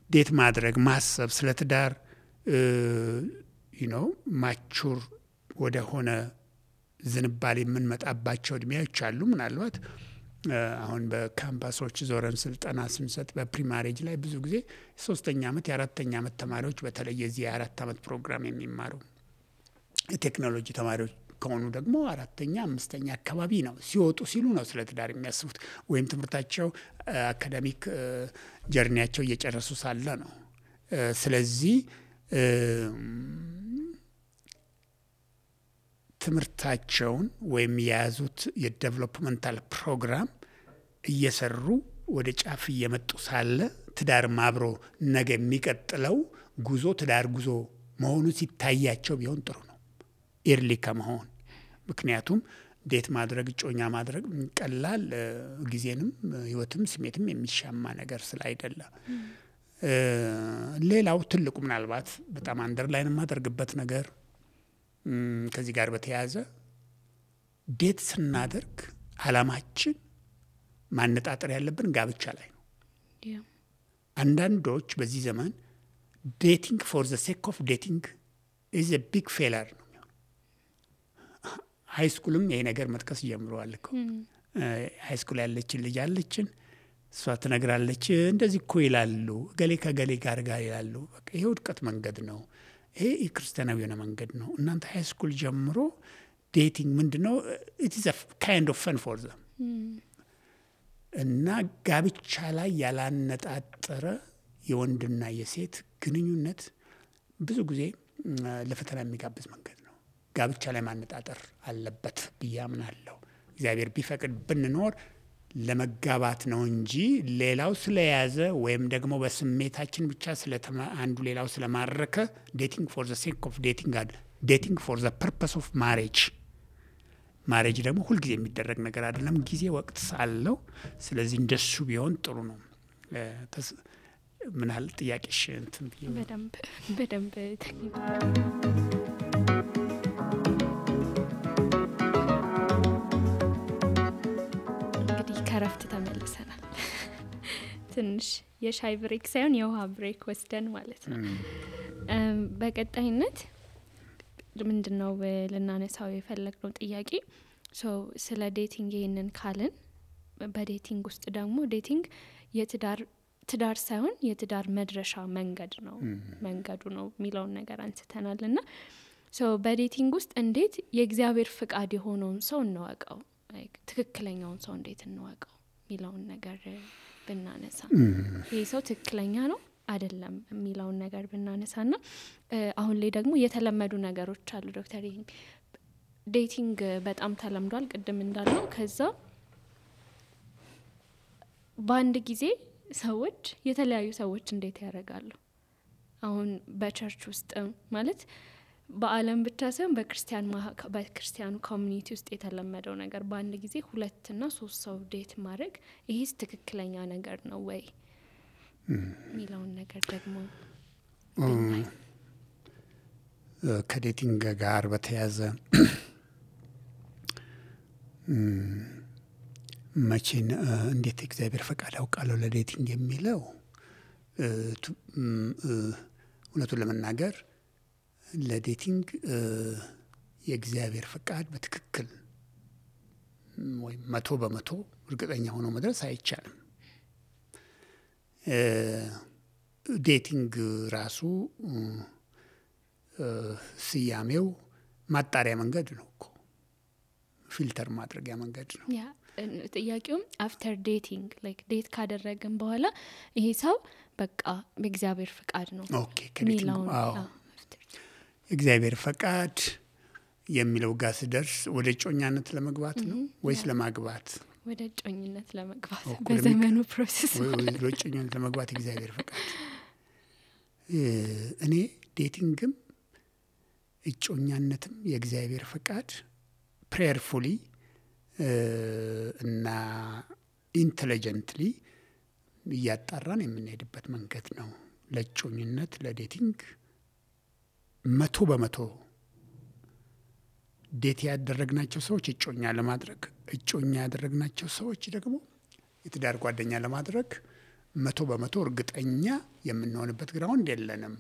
ዴት ማድረግ ማሰብ ስለ ትዳር ማቹር ወደ ሆነ ዝንባሌ የምንመጣባቸው እድሜዎች አሉ። ምናልባት አሁን በካምፓሶች ዞረን ስልጠና ስንሰጥ በፕሪማሬጅ ላይ ብዙ ጊዜ 3ኛ ዓመት የ4ኛ ዓመት ተማሪዎች በተለይ የዚህ የ4 ዓመት ፕሮግራም የሚማሩ የቴክኖሎጂ ተማሪዎች ከሆኑ ደግሞ አራተኛ አምስተኛ አካባቢ ነው ሲወጡ ሲሉ ነው ስለ ትዳር የሚያስቡት ወይም ትምህርታቸው አካዳሚክ ጀርኒያቸው እየጨረሱ ሳለ ነው። ስለዚህ ትምህርታቸውን ወይም የያዙት የዴቨሎፕመንታል ፕሮግራም እየሰሩ ወደ ጫፍ እየመጡ ሳለ ትዳር አብሮ ነገ የሚቀጥለው ጉዞ ትዳር ጉዞ መሆኑ ሲታያቸው ቢሆን ጥሩ ነው ኤርሊ ከመሆን። ምክንያቱም ዴት ማድረግ እጮኛ ማድረግ ቀላል ጊዜንም ህይወትም ስሜትም የሚሻማ ነገር ስላይደለ። ሌላው ትልቁ ምናልባት በጣም አንደርላይን የማደርግበት ነገር ከዚህ ጋር በተያያዘ ዴት ስናደርግ አላማችን ማነጣጠር ያለብን ጋብቻ ላይ ነው። አንዳንዶች በዚህ ዘመን ዴቲንግ ፎር ዘ ሴክ ኦፍ ዴቲንግ ኢዝ ኤ ቢግ ፌለር ነው። ሃይ ስኩልም ይሄ ነገር መጥቀስ ጀምረዋል እኮ። ሃይ ስኩል ያለችን ልጅ አለችን፣ እሷ ትነግራለች እንደዚህ እኮ ይላሉ ገሌ ከገሌ ጋር ይላሉ። በቃ ይሄ ውድቀት መንገድ ነው። ይሄ የክርስቲያናዊ የሆነ መንገድ ነው። እናንተ ሃይ ስኩል ጀምሮ ዴቲንግ ምንድነው? ኢት ኢዝ አ ካይንድ ኦፍ ፈን ፎር ዘም እና ጋብቻ ላይ ያላነጣጠረ የወንድና የሴት ግንኙነት ብዙ ጊዜ ለፈተና የሚጋብዝ መንገድ ነው። ጋብቻ ላይ ማነጣጠር አለበት ብዬ አምናለሁ። እግዚአብሔር ቢፈቅድ ብንኖር ለመጋባት ነው እንጂ ሌላው ስለያዘ ወይም ደግሞ በስሜታችን ብቻ አንዱ ሌላው ስለማረከ ዴቲንግ ፎር ዘ ሴክ ኦፍ ዴቲንግ ፎር ዘ ፐርፐስ ኦፍ ማሬጅ ደግሞ ሁልጊዜ የሚደረግ ነገር አይደለም። ጊዜ ወቅት ሳለው። ስለዚህ እንደሱ ቢሆን ጥሩ ነው። ምን ያህል ጥያቄሽ እንትን በደንብ እንግዲህ ከረፍት ተመልሰናል። ትንሽ የሻይ ብሬክ ሳይሆን የውሃ ብሬክ ወስደን ማለት ነው። በቀጣይነት ምንድነው ልናነሳው የፈለግነው ጥያቄ ስለ ዴቲንግ ይሄንን ካልን በዴቲንግ ውስጥ ደግሞ ዴቲንግ ትዳር ሳይሆን የትዳር መድረሻ መንገዱ ነው የሚለውን ነገር አንስተናልና በዴቲንግ ውስጥ እንዴት የእግዚአብሔር ፍቃድ የሆነውን ሰው እንወቀው፣ ትክክለኛውን ሰው እንዴት እንወቀው የሚለውን ነገር ብናነሳ ይሄ ሰው ትክክለኛ ነው አይደለም የሚለውን ነገር ብናነሳና አሁን ላይ ደግሞ የተለመዱ ነገሮች አሉ ዶክተር። ዴቲንግ በጣም ተለምዷል ቅድም እንዳልነው። ከዛ በአንድ ጊዜ ሰዎች የተለያዩ ሰዎች እንዴት ያደርጋሉ? አሁን በቸርች ውስጥ ማለት በአለም ብቻ ሳይሆን በክርስቲያኑ ኮሚኒቲ ውስጥ የተለመደው ነገር በአንድ ጊዜ 2 እና 3 ሰው ዴት ማድረግ ይሄስ ትክክለኛ ነገር ነው ወይ ሚለውን ነገር ደግሞ ከዴቲንግ ጋር በተያያዘ መቼን እንዴት እግዚአብሔር ፈቃድ አውቃለሁ ለዴቲንግ የሚለው እውነቱን ለመናገር ለዴቲንግ የእግዚአብሔር ፈቃድ በትክክል ወይ 100% እርግጠኛ ሆኖ መድረስ አይቻልም። ዴቲንግ ራሱ ስያሜው ማጣሪያ መንገድ ነው እኮ፣ ፊልተር ማድረጊያ መንገድ ነው። ጥያቄውም አፍተር ዴቲንግ ዴት ካደረግን በኋላ ይሄ ሰው በቃ በእግዚአብሔር ፈቃድ ነው ከዴቲንግ እግዚአብሔር ፈቃድ የሚለው ጋር ስደርስ ወደ ጮኛነት ለመግባት ነው ወይስ ለማግባት? ወደ ጮኝነት ለመግባት በዘመኑ ፕሮሰስ ወደ ጮኝነት ለመግባት እግዚአብሔር ፈቃድ። እኔ ዴቲንግም እጮኛነትም የእግዚአብሔር ፈቃድ ፕሬየርፉሊ እና ኢንተለጀንትሊ እያጣራን የምንሄድበት መንገድ ነው። ለጮኝነት ለዴቲንግ 100% ዴት ያደረግናቸው ሰዎች እጮኛ ለማድረግ፣ እጮኛ ያደረግናቸው ሰዎች ደግሞ የትዳር ጓደኛ ለማድረግ 100% እርግጠኛ የምንሆንበት ግራውንድ የለንም።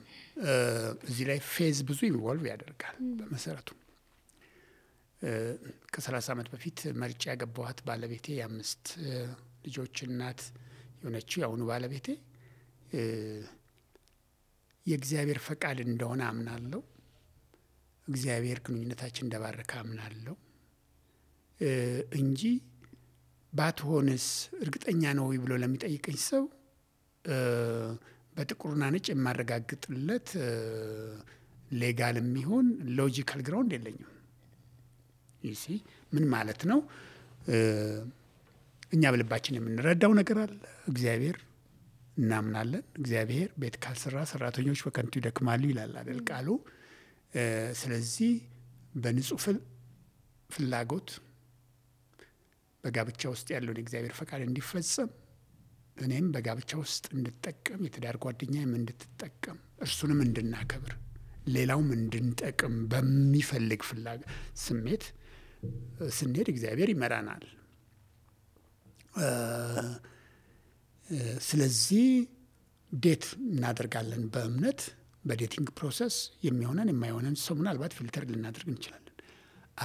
እዚህ ላይ ፌዝ ብዙ ኢንቮልቭ ያደርጋል። በመሰረቱ ከ30 ዓመት በፊት መርጫ ያገባኋት ባለቤቴ የ5 ልጆች እናት የሆነችው የአሁኑ ባለቤቴ የእግዚአብሔር ፈቃድ እንደሆነ አምናለሁ። እግዚአብሔር ግንኙነታችን እንደባረከ አምናለሁ እንጂ ባትሆንስ እርግጠኛ ነው ብሎ ለሚጠይቀኝ ሰው በጥቁርና ነጭ የማረጋግጥለት ሌጋል የሚሆን ሎጂካል ግራውንድ የለኝም። ይሲ ምን ማለት ነው? እኛ በልባችን የምንረዳው ነገር አለ። እግዚአብሔር እናምናለን። እግዚአብሔር ቤት ካልሰራ ሰራተኞች በከንቱ ይደክማሉ ይላል አይደል ቃሉ። ስለዚህ በንጹህ ፍላጎት በጋብቻ ውስጥ ያለውን የእግዚአብሔር ፈቃድ እንዲፈጸም እኔም በጋብቻ ውስጥ እንድጠቀም የትዳር ጓደኛዬም እንድትጠቀም እርሱንም እንድናከብር ሌላውም እንድንጠቅም በሚፈልግ ስሜት ስንሄድ እግዚአብሔር ይመራናል። ስለዚህ ዴት እናደርጋለን በእምነት በዴቲንግ ፕሮሰስ የሚሆነን የማይሆነን ሰው ምናልባት ፊልተር ልናደርግ እንችላለን።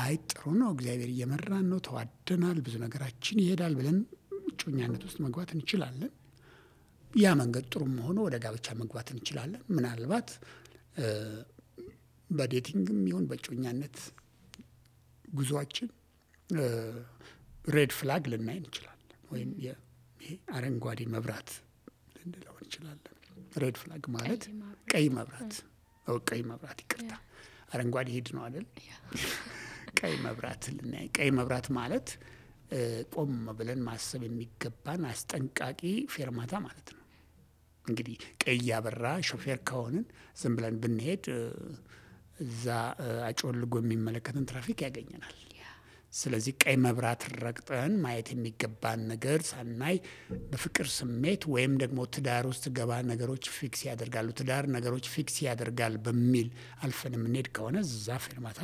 አይ ጥሩ ነው፣ እግዚአብሔር እየመራን ነው፣ ተዋደናል፣ ብዙ ነገራችን ይሄዳል ብለን እጮኛነት ውስጥ መግባት እንችላለን። ያ መንገድ ጥሩም ሆኖ ወደ ጋብቻ መግባት እንችላለን። ምናልባት በዴቲንግም ይሁን በእጮኛነት ጉዟችን ሬድ ፍላግ ልናይ እንችላለን፣ ወይም ይሄ አረንጓዴ መብራት ልንለው እንችላለን። ሬድ ፍላግ ማለት ቀይ መብራት፣ ቀይ መብራት ይቅርታ፣ አረንጓዴ ሄድ ነው አይደል? ቀይ መብራት ልናይ። ቀይ መብራት ማለት ቆም ብለን ማሰብ የሚገባን አስጠንቃቂ ፌርማታ ማለት ነው። እንግዲህ ቀይ ያበራ ሾፌር ከሆንን ዝም ብለን ብንሄድ እዛ አጮልጎ የሚመለከትን ትራፊክ ያገኘናል። ስለዚህ ቀይ መብራት ረግጠን ማየት የሚገባን ነገር ሳናይ በፍቅር ስሜት ወይም ደግሞ ትዳር ውስጥ ገባ ነገሮች ፊክስ ያደርጋሉ፣ ትዳር ነገሮች ፊክስ ያደርጋል በሚል አልፈን የምንሄድ ከሆነ እዛ ፌርማታ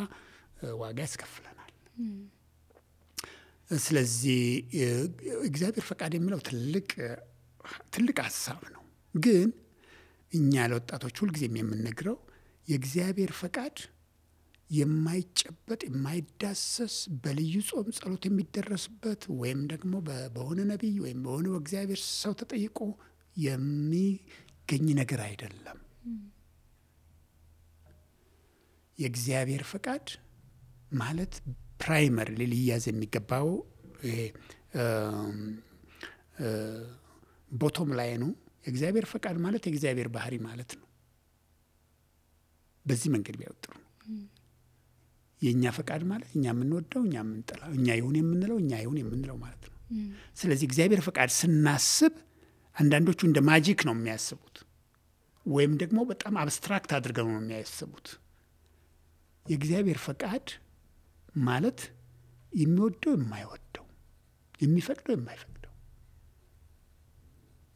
ዋጋ ያስከፍለናል። ስለዚህ እግዚአብሔር ፈቃድ የሚለው ትልቅ ሀሳብ ነው። ግን እኛ ለወጣቶች ሁልጊዜም የምንነግረው የእግዚአብሔር ፈቃድ የማይጨበጥ የማይዳሰስ በልዩ ጾም ጸሎት የሚደረስበት ወይም ደግሞ በሆነ ነቢይ ወይም በሆነ በእግዚአብሔር ሰው ተጠይቆ የሚገኝ ነገር አይደለም። የእግዚአብሔር ፈቃድ ማለት ፕራይመር ሊያዝ የሚገባው ቦቶም ላይ ነው። የእግዚአብሔር ፈቃድ ማለት የእግዚአብሔር ባህሪ ማለት ነው። በዚህ መንገድ ቢያወጥሩ የእኛ ፈቃድ ማለት እኛ የምንወደው እኛ የምንጠላው፣ እኛ ይሁን የምንለው እኛ ይሁን የምንለው ማለት ነው። ስለዚህ እግዚአብሔር ፈቃድ ስናስብ አንዳንዶቹ እንደ ማጂክ ነው የሚያስቡት፣ ወይም ደግሞ በጣም አብስትራክት አድርገው ነው የሚያስቡት። የእግዚአብሔር ፈቃድ ማለት የሚወደው የማይወደው፣ የሚፈቅደው የማይፈቅደው፣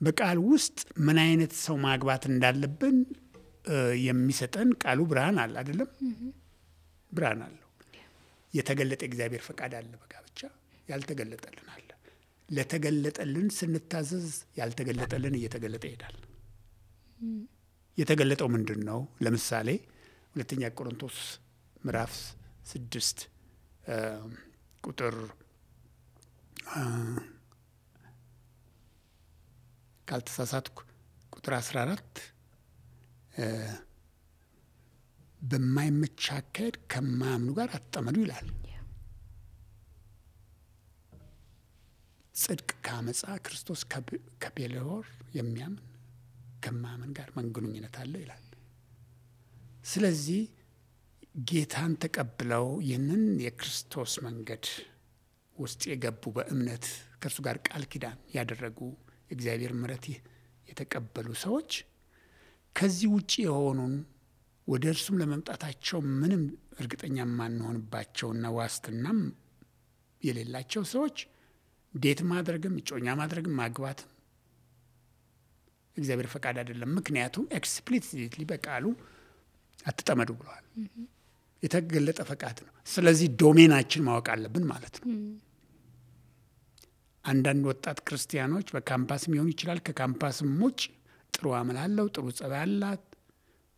በቃል ውስጥ ምን አይነት ሰው ማግባት እንዳለብን የሚሰጠን ቃሉ ብርሃን አለ አይደለም? ብርሃን አለው። የተገለጠ እግዚአብሔር ፈቃድ አለ በጋብቻ፣ ያልተገለጠልን አለ። ለተገለጠልን ስንታዘዝ ያልተገለጠልን እየተገለጠ ይሄዳል። የተገለጠው ምንድን ነው? ለምሳሌ 2ኛ ቆሮንቶስ ምዕራፍ 6 ቁጥር ካልተሳሳትኩ ቁጥር 14 በማይመች አካሄድ ከማያምኑ ጋር አትጠመዱ ይላል። ጽድቅ ከአመፃ፣ ክርስቶስ ከቤልሆር የሚያምን ከማያምን ጋር ምን ግንኙነት አለው ይላል። ስለዚህ ጌታን ተቀብለው ይህንን የክርስቶስ መንገድ ውስጥ የገቡ በእምነት ከእርሱ ጋር ቃል ኪዳን ያደረጉ እግዚአብሔር ምሕረት የተቀበሉ ሰዎች ከዚህ ውጪ የሆኑን ወደ እርሱም ለመምጣታቸው ምንም እርግጠኛ የማንሆንባቸውና ዋስትናም የሌላቸው ሰዎች ዴት ማድረግም እጮኛ ማድረግም ማግባትም እግዚአብሔር ፈቃድ አይደለም። ምክንያቱም ኤክስፕሊሲትሊ በቃሉ አትጠመዱ ብለዋል። የተገለጠ ፈቃድ ነው። ስለዚህ ዶሜናችን ማወቅ አለብን ማለት ነው። አንዳንድ ወጣት ክርስቲያኖች በካምፓስም ሊሆን ይችላል፣ ከካምፓስም ውጭ ጥሩ አመል አለው፣ ጥሩ ጸባይ አላት፣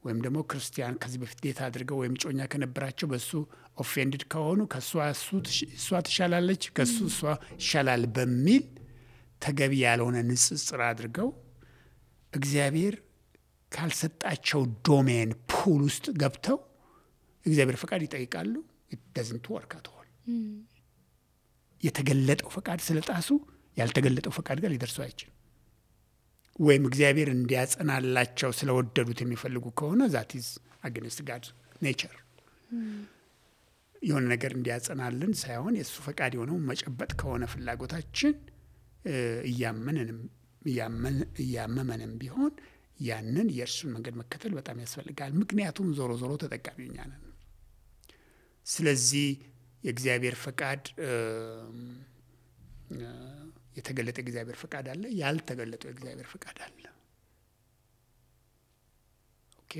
ወይም ደግሞ ክርስቲያን ከዚህ በፊት ዴት አድርገው ወይም ጮኛ ከነበራቸው በሱ ኦፌንድድ ከሆኑ ከእሷ እሷ ትሻላለች፣ ከሱ እሷ ይሻላል በሚል ተገቢ ያልሆነ ንጽጽር አድርገው እግዚአብሔር ካልሰጣቸው ዶሜን ፑል ውስጥ ገብተው እግዚአብሔር ፈቃድ ይጠይቃሉ። it doesn't work at all። የተገለጠው ፈቃድ ስለጣሱ ያልተገለጠው ፈቃድ ጋር ሊደርሱ አይችልም። ወይም እግዚአብሔር እንዲያጸናላቸው ስለወደዱት የሚፈልጉ ከሆነ that is against God's nature። የሆነ ነገር እንዲያጸናልን ሳይሆን የእሱ ፈቃድ የሆነው መጨበጥ ከሆነ ፍላጎታችን እያመመንም ቢሆን ያንን የእርሱን መንገድ መከተል በጣም ያስፈልጋል። ምክንያቱም ዞሮ ዞሮ ተጠቃሚው እኛ ነን። ስለዚህ የእግዚአብሔር ፈቃድ የተገለጠ የእግዚአብሔር ፈቃድ አለ፣ ያልተገለጠው የእግዚአብሔር ፈቃድ አለ። ኦኬ።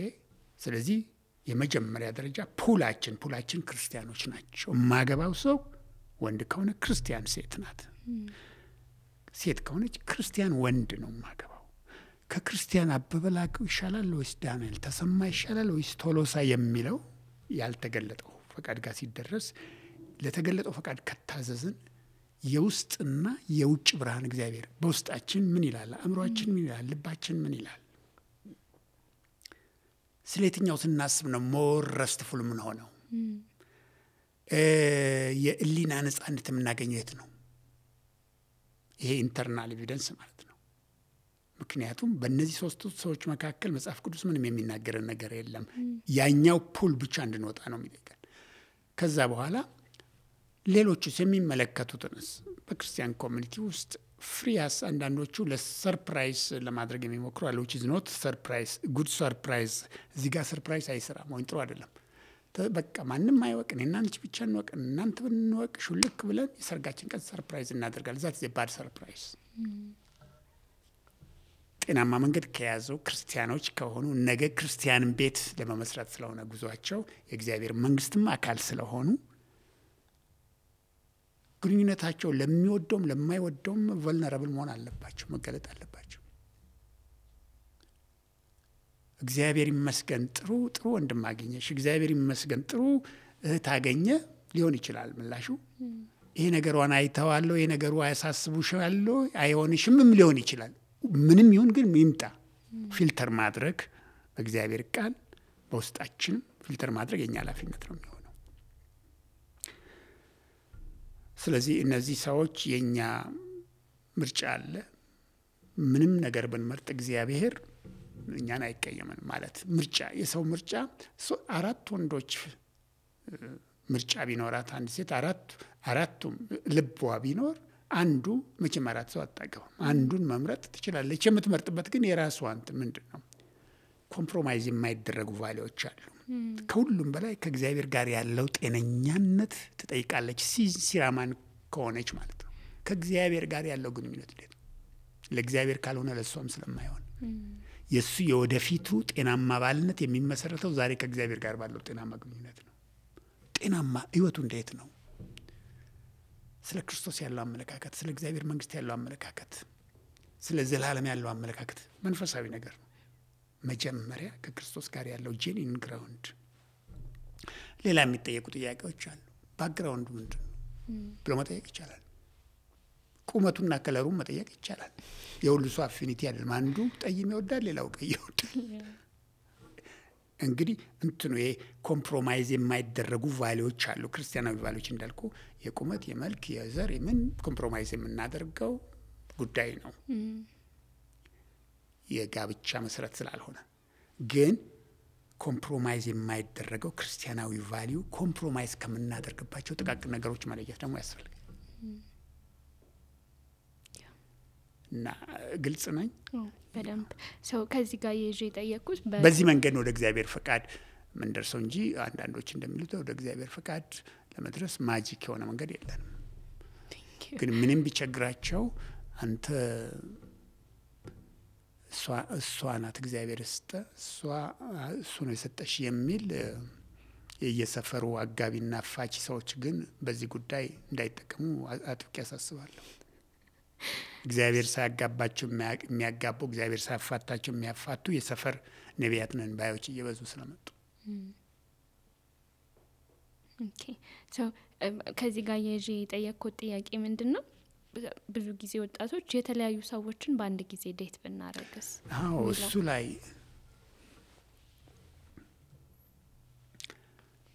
ስለዚህ የመጀመሪያ ደረጃ ፑላችን ክርስቲያኖች ናቸው። የማገባው ሰው ወንድ ከሆነ ክርስቲያን ሴት ናት፣ ሴት ከሆነች ክርስቲያን ወንድ ነው የማገባው። ከክርስቲያን አበበ ላቀው ይሻላል ወይስ ዳንኤል ተሰማ ይሻላል ወይስ ቶሎሳ የሚለው ያልተገለጠው ፈቃድ ጋር ሲደረስ ለተገለጠው ፈቃድ ከታዘዝን የውስጥና የውጭ ብርሃን እግዚአብሔር በውስጣችን ምን ይላል፣ አእምሮአችን ምን ይላል፣ ልባችን ምን ይላል፣ ስለ የትኛው ስናስብ ነው ሞር ረስትፉል ምን ሆነው የእሊና ነጻነት የምናገኘው የት ነው? ይሄ ኢንተርናል ኤቪደንስ ማለት ነው። ምክንያቱም በእነዚህ ሶስቱ ሰዎች መካከል መጽሐፍ ቅዱስ ምንም የሚናገረን ነገር የለም። ያኛው ፑል ብቻ እንድንወጣ ነው የሚጠይቀን። ከዛ በኋላ ሌሎቹስ የሚመለከቱትንስ በክርስቲያን ኮሚኒቲ ውስጥ ፍሪያስ አንዳንዶቹ ለሰርፕራይዝ ለማድረግ የሚሞክሩ አለ። which is not surprise good surprise። እዚህ ጋር ሰርፕራይዝ አይሰራም ወይ ጥሩ አይደለም። በቃ ማንም አይወቅ፣ እኔና አንቺ ብቻ እንወቅ፣ እናንተ ብንወቅ ሹልክ ብለን የሰርጋችን ቀን ሰርፕራይዝ እናደርጋለን። ዛት ባድ ሰርፕራይዝ። ጤናማ መንገድ ከያዘው ክርስቲያኖች ከሆኑ ነገ ክርስቲያንን ቤት ለመመስረት ስለሆነ ጉዟቸው የእግዚአብሔር መንግስትም አካል ስለሆኑ ግንኙነታቸው ለሚወደውም ለማይወደውም ቨልነራብል መሆን አለባቸው፣ መገለጥ አለባቸው። እግዚአብሔር ይመስገን ጥሩ ወንድም አገኘሽ፣ እግዚአብሔር ይመስገን ጥሩ እህት አገኘ ሊሆን ይችላል ምላሹ። ይሄ ነገሯን አይተዋለሁ፣ ይሄ ነገሩ አያሳስቡሻለሁ፣ አይሆንሽምም ሊሆን ይችላል። ምንም ይሁን ግን ይምጣ። ፊልተር ማድረግ በእግዚአብሔር ቃል በውስጣችን ፊልተር ማድረግ የኛ ኃላፊነት ነው የሚሆነው። ስለዚህ እነዚህ ሰዎች የኛ ምርጫ አለ። ምንም ነገር ብንመርጥ እግዚአብሔር እኛን አይቀየምን ማለት ምርጫ የሰው ምርጫ 4 ወንዶች ምርጫ ቢኖራት አንድ ሴት አራቱም ልቧ ቢኖር አንዱ መቼም 4 ሰው አታገባም። አንዱን መምረጥ ትችላለች። የምትመርጥበት ግን የራሷ ምንድን ነው ኮምፕሮማይዝ የማይደረጉ ቫሊዎች አሉ። ከሁሉም በላይ ከእግዚአብሔር ጋር ያለው ጤነኛነት ትጠይቃለች። ሲራማን ከሆነች ማለት ነው። ከእግዚአብሔር ጋር ያለው ግንኙነት እንዴት ነው? ለእግዚአብሔር ካልሆነ ለሷም ስለማይሆን የሱ የወደፊቱ ጤናማ ባልነት የሚመሰረተው ዛሬ ከእግዚአብሔር ጋር ባለው ጤናማ ግንኙነት ነው። ጤናማ ህይወቱ እንዴት ነው? ስለ ክርስቶስ ያለው አመለካከት፣ ስለ እግዚአብሔር መንግስት ያለው አመለካከት፣ ስለ ዘላለም ያለው አመለካከት መንፈሳዊ ነገር ነው። መጀመሪያ ከክርስቶስ ጋር ያለው ጄኒን ግራውንድ። ሌላ የሚጠየቁ ጥያቄዎች አሉ። ባክግራውንድ ምንድን ነው ብሎ መጠየቅ ይቻላል። ቁመቱና ከለሩን መጠየቅ ይቻላል። የሁሉ ሰው አፊኒቲ አይደለም። አንዱ ጠይም ይወዳል፣ ሌላው ቀይ ይወዳል። እንግዲህ እንትኑ ይሄ ኮምፕሮማይዝ የማይደረጉ ቫሊዎች አሉ። ክርስቲያናዊ ቫሊዎች እንዳልኩ የቁመት፣ የመልክ፣ የዘር የምን ኮምፕሮማይዝ የምናደርገው ጉዳይ ነው የጋብቻ መሰረት ስላልሆነ። ግን ኮምፕሮማይዝ የማይደረገው ክርስቲያናዊ ቫሊዩ ኮምፕሮማይዝ ከምናደርግባቸው ጥቃቅን ነገሮች መለየት ደግሞ ያስፈልጋል። እና ግልጽ ነኝ በደንብ ሰው ከዚህ ጋር ይዤ የጠየቅኩት በዚህ መንገድ ወደ እግዚአብሔር ፈቃድ ምንደርሰው እንጂ አንዳንዶች እንደሚሉት ወደ እግዚአብሔር ፈቃድ ለመድረስ ማጂክ የሆነ መንገድ የለንም። ግን ምንም ቢቸግራቸው አንተ እሷ ናት እግዚአብሔር ስጠ እሱ ነው የሰጠሽ የሚል የየሰፈሩ አጋቢና አፋች ሰዎች ግን በዚህ ጉዳይ እንዳይጠቀሙ አጥብቄ ያሳስባለሁ። እግዚአብሔር ሳያጋባቸው የሚያጋቡ፣ እግዚአብሔር ሳያፋታቸው የሚያፋቱ የሰፈር ነቢያት ነን ባዮች እየበዙ ስለመጡ ኦኬ ሶ ከዚህ ጋር ይዤ የጠየቅኩት ጥያቄ ምንድን ነው? ብዙ ጊዜ ወጣቶች የተለያዩ ሰዎችን በአንድ ጊዜ ዴት ብናረግስ? እሱ ላይ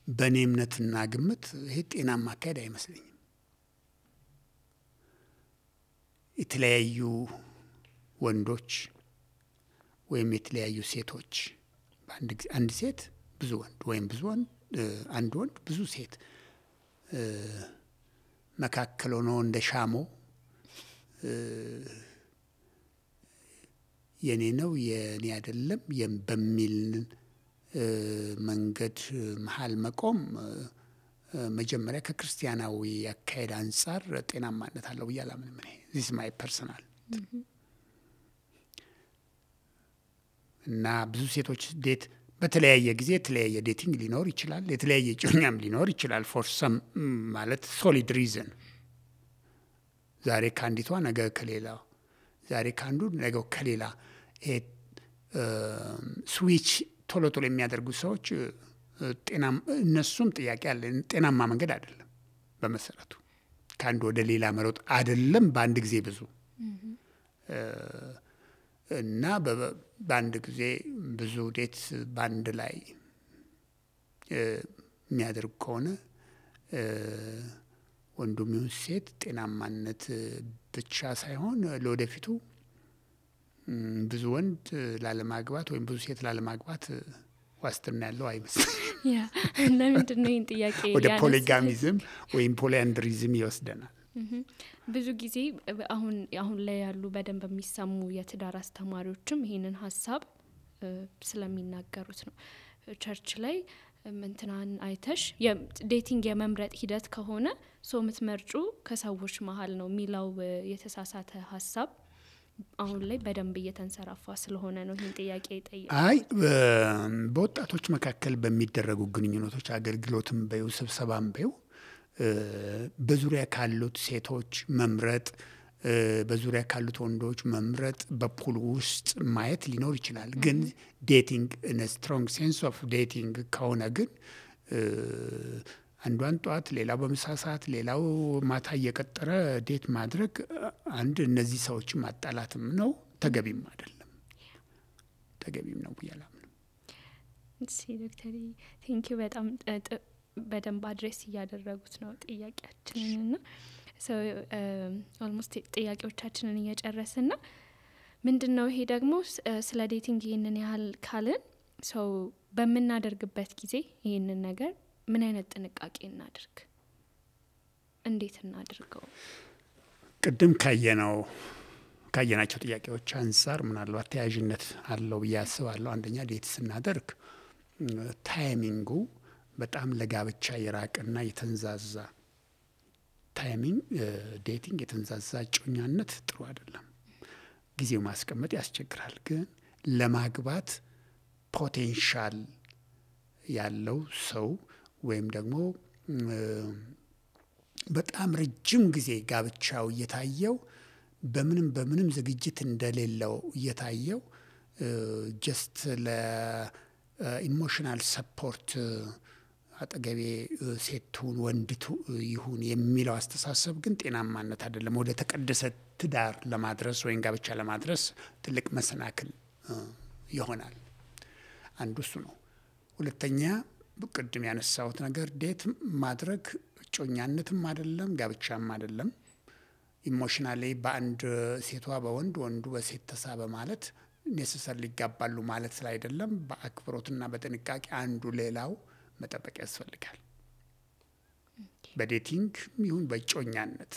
በእኔ እምነትና ግምት ይሄ ጤናማ አካሄድ አይመስለኝም። የተለያዩ ወንዶች ወይም የተለያዩ ሴቶች በአንድ ጊዜ አንድ ሴት ብዙ ወንድ ወይም ብዙ ወንድ አንድ ወንድ ብዙ ሴት መካከል ሆኖ እንደ ሻሞ የኔ ነው የኔ አይደለም በሚል መንገድ መሀል መቆም መጀመሪያ ከክርስቲያናዊ አካሄድ አንጻር ጤናማነት አለው ብዬ አላምንም። ዚስ ማይ ፐርሰናል እና ብዙ ሴቶች ዴት በተለያየ ጊዜ የተለያየ ዴቲንግ ሊኖር ይችላል፣ የተለያየ ጮኛም ሊኖር ይችላል። ፎር ሰም ማለት ሶሊድ ሪዝን ዛሬ ከአንዲቷ ነገ ከሌላ፣ ዛሬ ከአንዱ ነገ ከሌላ ስዊች ቶሎ ቶሎ የሚያደርጉ ሰዎች እነሱም ጥያቄ አለ። ጤናማ መንገድ አይደለም። በመሰረቱ ከአንድ ወደ ሌላ መሮጥ አይደለም በአንድ ጊዜ ብዙ እና በአንድ ጊዜ ብዙ ዴት በአንድ ላይ የሚያደርግ ከሆነ ወንዱም ይሁን ሴት ጤናማነት ብቻ ሳይሆን ለወደፊቱ ብዙ ወንድ ላለማግባት ወይም ብዙ ሴት ላለማግባት ዋስትና ያለው አይመስልም። ያ ለምንድን ነው ይህን ጥያቄ ወደ ፖሊጋሚዝም ወይም ፖሊአንድሪዝም ይወስደናል። ብዙ ጊዜ አሁን ላይ ያሉ በደንብ የሚሰሙ የትዳር አስተማሪዎችም ይህንን ሀሳብ ስለሚናገሩት ነው። ቸርች ላይ እንትናን አይተሽ ዴቲንግ የመምረጥ ሂደት ከሆነ ሰው የምትመርጩ ከሰዎች መሀል ነው የሚለው የተሳሳተ ሀሳብ አሁን ላይ በደንብ እየተንሰራፋ ስለሆነ ነው ይህን ጥያቄ ጠየቁት። አይ በወጣቶች መካከል በሚደረጉ ግንኙነቶች አገልግሎትም በይው ስብሰባም በይው በዙሪያ ካሉት ሴቶች መምረጥ፣ በዙሪያ ካሉት ወንዶች መምረጥ፣ በፑል ውስጥ ማየት ሊኖር ይችላል። ግን ዴቲንግ ኢን ስትሮንግ ሴንስ ኦፍ ዴቲንግ ከሆነ ግን አንዷን ጠዋት ሌላው በምሳ ሰዓት ሌላው ማታ እየቀጠረ ዴት ማድረግ አንድ እነዚህ ሰዎችን ማጣላትም ነው፣ ተገቢም አይደለም። ተገቢም ነው ብዬ አላምንም። እሺ ዶክተር ቴንኪው በጣም በደንብ አድሬስ እያደረጉት ነው ጥያቄያችንንና ኦልሞስት ጥያቄዎቻችንን እየጨረስን ነው። ምንድነው ይሄ ደግሞ ስለ ዴቲንግ ይህንን ያህል ካልን ሰው በምናደርግበት ጊዜ ይህንን ነገር ምን አይነት ጥንቃቄ እናድርግ? እንዴት እናድርገው? ቅድም ካየናቸው ጥያቄዎች አንጻር ምናልባት ተያያዥነት አለው ብዬ አስባለሁ። አንደኛ ዴት ስናደርግ ታይሚንጉ በጣም ለጋብቻ የራቀና የተንዛዛ ታይሚንግ ዴቲንግ የተንዛዛ ጮኛነት ጥሩ አይደለም። ጊዜው ማስቀመጥ ያስቸግራል። ግን ለማግባት ፖቴንሻል ያለው ሰው ወይም ደግሞ በጣም ረጅም ጊዜ ጋብቻው እየታየው በምንም ዝግጅት እንደሌለው እየታየው ጀስት ለኢሞሽናል ሰፖርት አጠገቤ ሴቱን ወንድቱ ይሁን የሚለው አስተሳሰብ ግን ጤናማነት አይደለም። ወደ ተቀደሰ ትዳር ለማድረስ ወይም ጋብቻ ለማድረስ ትልቅ መሰናክል ይሆናል። አንዱ እሱ ነው። ሁለተኛ ቅድም ያነሳሁት ነገር ዴት ማድረግ ጮኛነትም አይደለም ጋብቻም አይደለም። ኢሞሽናሊ በአንድ ሴቷ በወንድ ወንዱ በሴት ተሳበ ማለት ኔሰሰር ሊጋባሉ ማለት ስላይደለም በአክብሮትና በጥንቃቄ አንዱ ሌላው መጠበቅ ያስፈልጋል። በዴቲንግ ይሁን በጮኛነት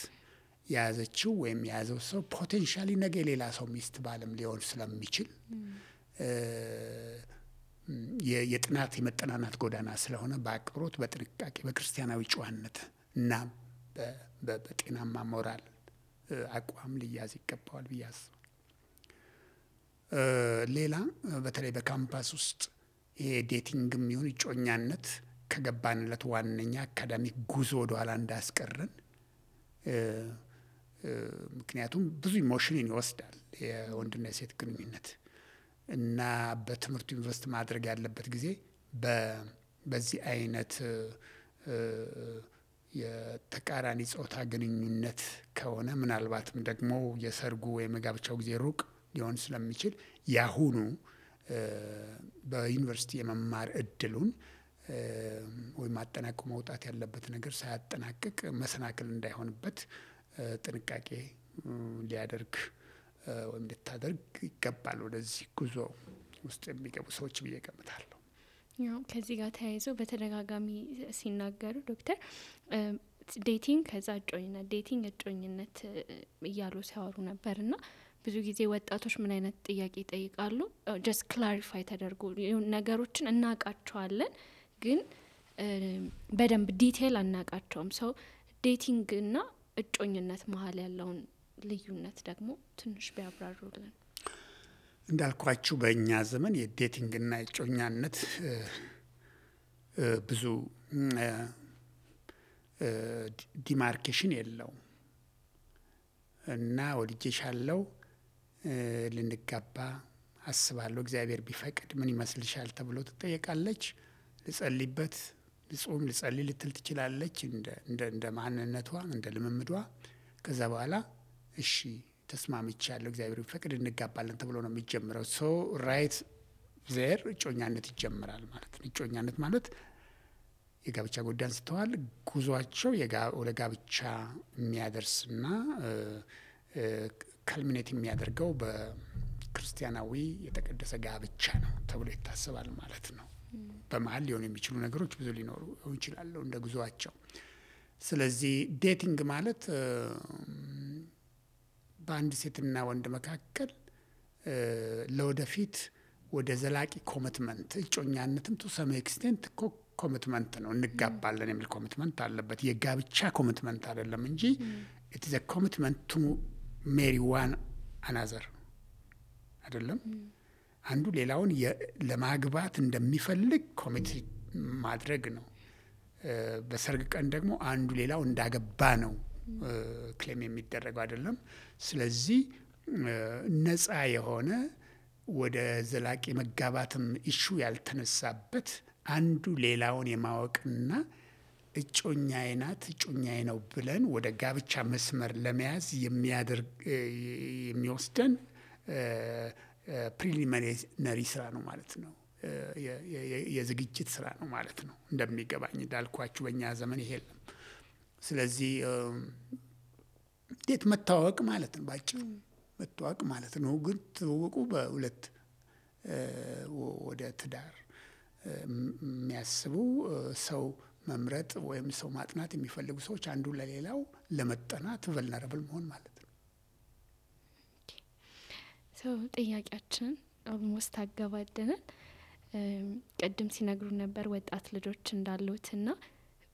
የያዘችው ወይም የያዘው ሰው ፖቴንሻሊ ነገ ሌላ ሰው ሚስት ባለም ሊሆን ስለሚችል የጥናት የመጠናናት ጎዳና ስለሆነ በአክብሮት በጥንቃቄ በክርስቲያናዊ ጨዋነት እና በጤናማ ሞራል አቋም ሊያዝ ይገባዋል ብዬ አስባለሁ። ሌላ በተለይ በካምፓስ ውስጥ ይሄ ዴቲንግም ይሁን ጮኛነት ከገባንለት ዋነኛ አካዳሚክ ጉዞ ወደኋላ እንዳያስቀረን። ምክንያቱም ብዙ ኢሞሽንን ይወስዳል የወንድና የሴት ግንኙነት እና በትምህርቱ ኢንቨስት ማድረግ ያለበት ጊዜ በዚህ አይነት የተቃራኒ ጾታ ግንኙነት ከሆነ ምናልባትም ደግሞ የሰርጉ ወይም የጋብቻው ጊዜ ሩቅ ሊሆን ስለሚችል ያሁኑ በዩኒቨርሲቲ የመማር እድሉን ወይም አጠናቅቆ መውጣት ያለበት ነገር ሳያጠናቅቅ መሰናክል እንዳይሆንበት ጥንቃቄ ሊያደርግ ወይም ልታደርግ ይገባል ወደዚህ ጉዞ ውስጥ የሚገቡ ሰዎች ብዬ እገምታለሁ። ያው ከዚህ ጋር ተያይዘው በተደጋጋሚ ሲናገሩ ዶክተር ዴቲንግ ከዛ እጮኝነት ዴቲንግ እጮኝነት እያሉ ሲያወሩ ነበርና ብዙ ጊዜ ወጣቶች ምን አይነት ጥያቄ ይጠይቃሉ? ጀስት ክላሪፋይ ተደርጎ ነገሮችን እናውቃቸዋለን ግን በደንብ ዲቴል አናውቃቸውም። ሰው ዴቲንግ እና እጮኝነት መሀል ያለውን ልዩነት ደግሞ ትንሽ ቢያብራሩልን። እንዳልኳችሁ በእኛ ዘመን የዴቲንግ እና የእጮኛነት ብዙ ዲማርኬሽን የለውም እና ወድጄሻለሁ፣ ልንጋባ አስባለሁ፣ እግዚአብሔር ቢፈቅድ ምን ይመስልሻል ተብሎ ትጠየቃለች። ልጸልይበት፣ ልጾም፣ ልጸልይ ልትል ትችላለች እንደ ማንነቷ እንደ ልምምዷ። ከዛ በኋላ እሺ ተስማምቻለሁ፣ እግዚአብሔር ቢፈቅድ እንጋባለን ተብሎ ነው የሚጀምረው። ሶ ራይት ዜር እጮኛነት ይጀምራል ማለት ነው። እጮኛነት ማለት የጋብቻ ጉዳይ አንስተዋል። ጉዟቸው ወደ ጋብቻ የሚያደርስና ካልሚኔት የሚያደርገው በክርስቲያናዊ የተቀደሰ ጋብቻ ነው ተብሎ ይታሰባል ማለት ነው። በመሀል ሊሆኑ የሚችሉ ነገሮች ብዙ ሊኖሩ ይችላሉ እንደ ጉዟቸው። ስለዚህ ዴቲንግ ማለት በአንድ ሴትና ወንድ መካከል ለወደፊት ወደ ዘላቂ ኮሚትመንት፣ እጮኛነትም ቱ ሰም ኤክስቴንት ኮሚትመንት ነው። እንጋባለን የሚል ኮሚትመንት አለበት። የጋብቻ ኮሚትመንት አይደለም እንጂ ኢት ኢዝ አ ኮሚትመንት ቱ ሜሪ ዋን አናዘር አይደለም። አንዱ ሌላውን ለማግባት እንደሚፈልግ ኮሚት ማድረግ ነው። በሰርግ ቀን ደግሞ አንዱ ሌላው እንዳገባ ነው ክሌም የሚደረገው አይደለም። ስለዚህ ነፃ የሆነ ወደ ዘላቂ መጋባትም ኢሹ ያልተነሳበት አንዱ ሌላውን የማወቅና እጮኛዬ ናት እጮኛዬ ነው ብለን ወደ ጋብቻ መስመር ለመያዝ የሚወስደን ፕሪሊሚነሪ ስራ ነው ማለት ነው። የዝግጅት ስራ ነው ማለት ነው። እንደሚገባኝ እንዳልኳችሁ በእኛ ዘመን ይሄ የለም። ስለዚህ እንዴት መታወቅ ማለት ነው፣ ባጭሩ መታወቅ ማለት ነው። ግን ትውውቁ በሁለት ወደ ትዳር የሚያስቡ ሰው መምረጥ ወይም ሰው ማጥናት የሚፈልጉ ሰዎች አንዱ ለሌላው ለመጠናት ቨልነረብል መሆን ማለት ነው። ሰው ጥያቄያችንን ኦልሞስት አገባደናል። ቅድም ሲነግሩ ነበር ወጣት ልጆች እንዳሉትና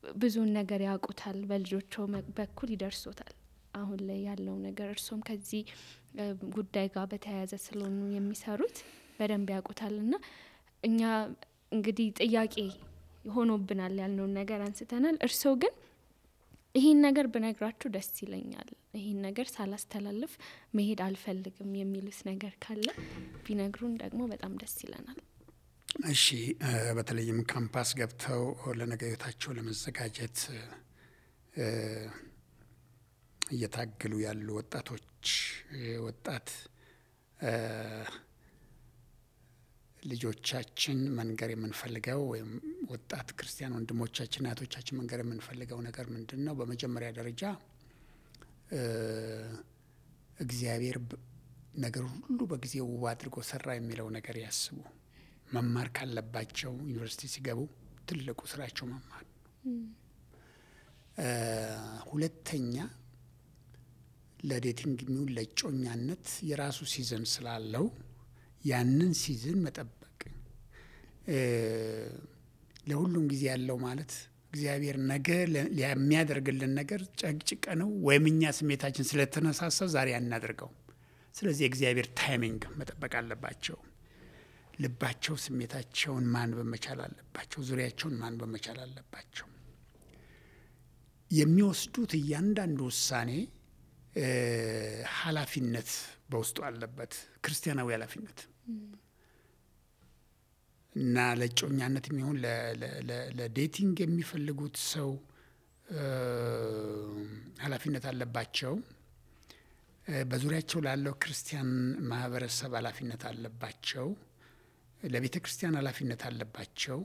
ብዙውን ነገር ያውቁታል፣ በልጆቹ በኩል ይደርሶታል አሁን ላይ ያለው ነገር። እርሶም ከዚህ ጉዳይ ጋር በተያያዘ ስለሆኑ የሚሰሩት በደንብ ያውቁታልና እኛ እንግዲህ ጥያቄ ሆኖብናል ያልነውን ነገር አንስተናል። እርሶ ግን ይሄን ነገር ብነግራችሁ ደስ ይለኛል፣ ይሄን ነገር ሳላስተላልፍ መሄድ አልፈልግም የሚሉት ነገር ካለ ቢነግሩን ደግሞ በጣም ደስ ይለናል። እሺ፣ በተለይም ካምፓስ ገብተው ለነገ ህይወታቸው ለመዘጋጀት እየታገሉ ያሉ ወጣቶች ወጣት ልጆቻችን መንገር የምንፈልገው ወይም ወጣት ክርስቲያን ወንድሞቻችን እህቶቻችን መንገር የምንፈልገው ነገር ምንድን ነው? በመጀመሪያ ደረጃ እግዚአብሔር ነገር ሁሉ በጊዜው ውብ አድርጎ ሰራ የሚለው ነገር ያስቡ። መማር ካለባቸው ዩኒቨርሲቲ ሲገቡ ትልቁ ስራቸው መማር ነው። ሁለተኛ ለዴቲንግ የሚሆን ለእጮኛነት የራሱ ሲዝን ስላለው ያንን ሲዝን መጠበቅ። ለሁሉም ጊዜ ያለው ማለት እግዚአብሔር ነገ የሚያደርግልን ነገር ጨቅጭቀ ነው ወይም እኛ ስሜታችን ስለተነሳሳ ዛሬ አናደርገው። ስለዚህ የእግዚአብሔር ታይሚንግ መጠበቅ አለባቸው። ልባቸው ስሜታቸውን ማንበብ መቻል አለባቸው። ዙሪያቸውን ማንበብ መቻል አለባቸው። የሚወስዱት እያንዳንዱ ውሳኔ ኃላፊነት በውስጡ አለበት፣ ክርስቲያናዊ ኃላፊነት እና ለእጮኛነት የሚሆን ለዴቲንግ የሚፈልጉት ሰው ኃላፊነት አለባቸው። በዙሪያቸው ላለው ክርስቲያን ማህበረሰብ ኃላፊነት አለባቸው። ለቤተ ክርስቲያን ኃላፊነት አለባቸው።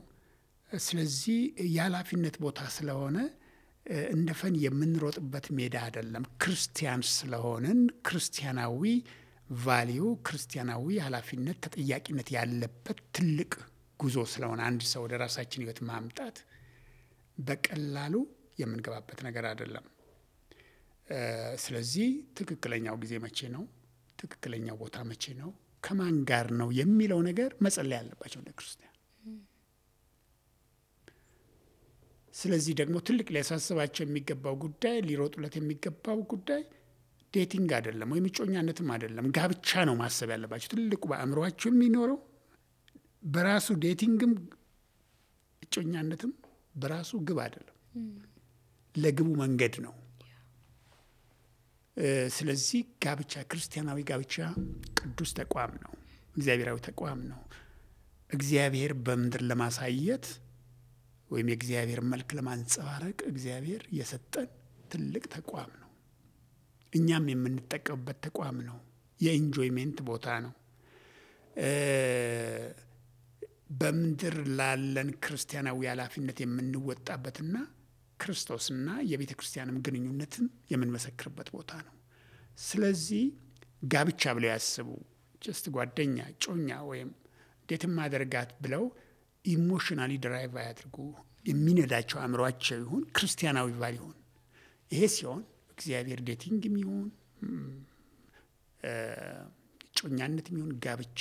ስለዚህ የኃላፊነት ቦታ ስለሆነ እንደ ፈን የምንሮጥበት ሜዳ አይደለም። ክርስቲያን ስለሆንን ክርስቲያናዊ ቫሊዩ፣ ክርስቲያናዊ ኃላፊነት፣ ተጠያቂነት ያለበት ትልቅ ጉዞ ስለሆነ አንድ ሰው ወደ ራሳችን ህይወት ማምጣት በቀላሉ የምንገባበት ነገር አይደለም። ስለዚህ ትክክለኛው ጊዜ መቼ ነው፣ ትክክለኛው ቦታ መቼ ነው፣ ከማን ጋር ነው የሚለው ነገር መጸለይ ያለባቸው እንደ ክርስቲያን። ስለዚህ ደግሞ ትልቅ ሊያሳስባቸው የሚገባው ጉዳይ፣ ሊሮጡለት የሚገባው ጉዳይ ዴቲንግ አይደለም ወይም እጮኛነትም አይደለም፣ ጋብቻ ነው ማሰብ ያለባቸው። ትልቁ በአእምሯቸው የሚኖረው በራሱ ዴቲንግም እጮኛነትም በራሱ ግብ አይደለም፣ ለግቡ መንገድ ነው። ስለዚህ ጋብቻ፣ ክርስቲያናዊ ጋብቻ ቅዱስ ተቋም ነው፣ እግዚአብሔራዊ ተቋም ነው። እግዚአብሔር በምድር ለማሳየት ወይም የእግዚአብሔር መልክ ለማንጸባረቅ እግዚአብሔር የሰጠን ትልቅ ተቋም ነው። እኛም የምንጠቀምበት ተቋም ነው። የኢንጆይሜንት ቦታ ነው። በምድር ላለን ክርስቲያናዊ ኃላፊነት የምንወጣበትና ክርስቶስና የቤተ ክርስቲያንም ግንኙነትን የምንመሰክርበት ቦታ ነው። ስለዚህ ጋብቻ ብለው ያስቡ፣ ጀስት ጓደኛ፣ ጮኛ ወይም ዴት ማደርጋት ብለው ኢሞሽናሊ ድራይቭ አያድርጉ። የሚነዳቸው አእምሯቸው ይሁን፣ ክርስቲያናዊ ቫል ይሁን። ይሄ ሲሆን እግዚአብሔር ዴቲንግም ይሁን ጮኛነትም ይሁን ጋብቻ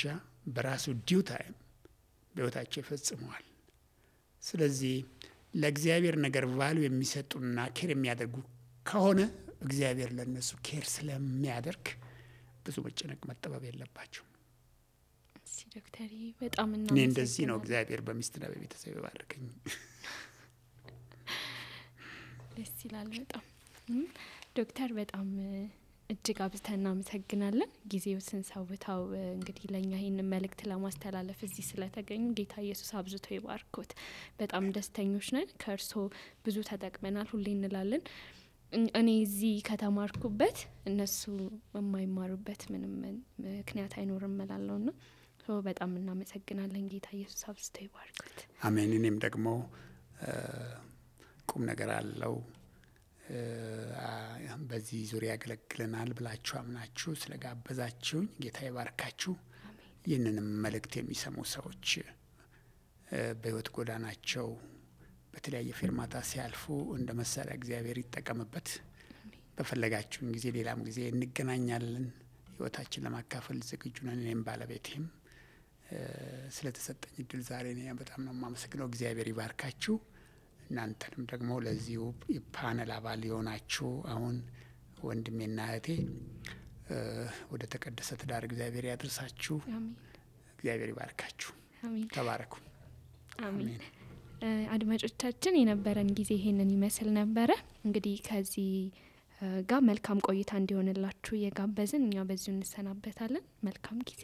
በራሱ ዲው ታይም በሕይወታቸው ይፈጽመዋል። ስለዚህ ለእግዚአብሔር ነገር ቫሉ የሚሰጡና ኬር የሚያደርጉ ከሆነ እግዚአብሔር ለነሱ ኬር ስለሚያደርግ ብዙ መጨነቅ መጠበብ የለባቸው። ዶክተር በጣም እኔ እንደዚህ ነው እግዚአብሔር በሚስትና በቤተሰብ ይባርከኝ። ደስ ይላል በጣም ዶክተር፣ በጣም እጅግ አብዝተን እናመሰግናለን። ጊዜው ስንሰውታው እንግዲህ ለእኛ ይህንን መልእክት ለማስተላለፍ እዚህ ስለተገኙ ጌታ ኢየሱስ አብዝቶ ይባርኮት። በጣም ደስተኞች ነን። ከእርስዎ ብዙ ተጠቅመናል ሁሌ እንላለን። እኔ እዚህ ከተማርኩበት እነሱ የማይማሩበት ምንም ምክንያት አይኖርም እላለሁና በጣም እናመሰግናለን። ጌታ ኢየሱስ አብዝቶ ይባርኮት። አሜን። እኔም ደግሞ ቁም ነገር አለው በዚህ ዙሪያ ያገለግለናል ብላችሁ አምናችሁ ስለጋበዛችሁኝ ጌታ ይባርካችሁ። ይህንንም መልእክት የሚሰሙ ሰዎች በሕይወት ጎዳናቸው በተለያየ ፌርማታ ሲያልፉ እንደ መሳሪያ እግዚአብሔር ይጠቀምበት። በፈለጋችሁን ጊዜ ሌላም ጊዜ እንገናኛለን። ሕይወታችን ለማካፈል ዝግጁ ነን። እኔም ባለቤቴም ስለተሰጠኝ እድል ዛሬ በጣም ነው የማመሰግነው። እግዚአብሔር ይባርካችሁ። እናንተንም ደግሞ ለዚሁ የፓነል አባል የሆናችሁ አሁን ወንድሜና እህቴ ወደ ተቀደሰ ትዳር እግዚአብሔር ያድርሳችሁ። እግዚአብሔር ይባርካችሁ። ተባረኩ። አሜን። አድማጮቻችን የነበረን ጊዜ ይሄንን ይመስል ነበረ። እንግዲህ ከዚህ ጋር መልካም ቆይታ እንዲሆንላችሁ እየጋበዝን እኛ በዚሁ እንሰናበታለን። መልካም ጊዜ።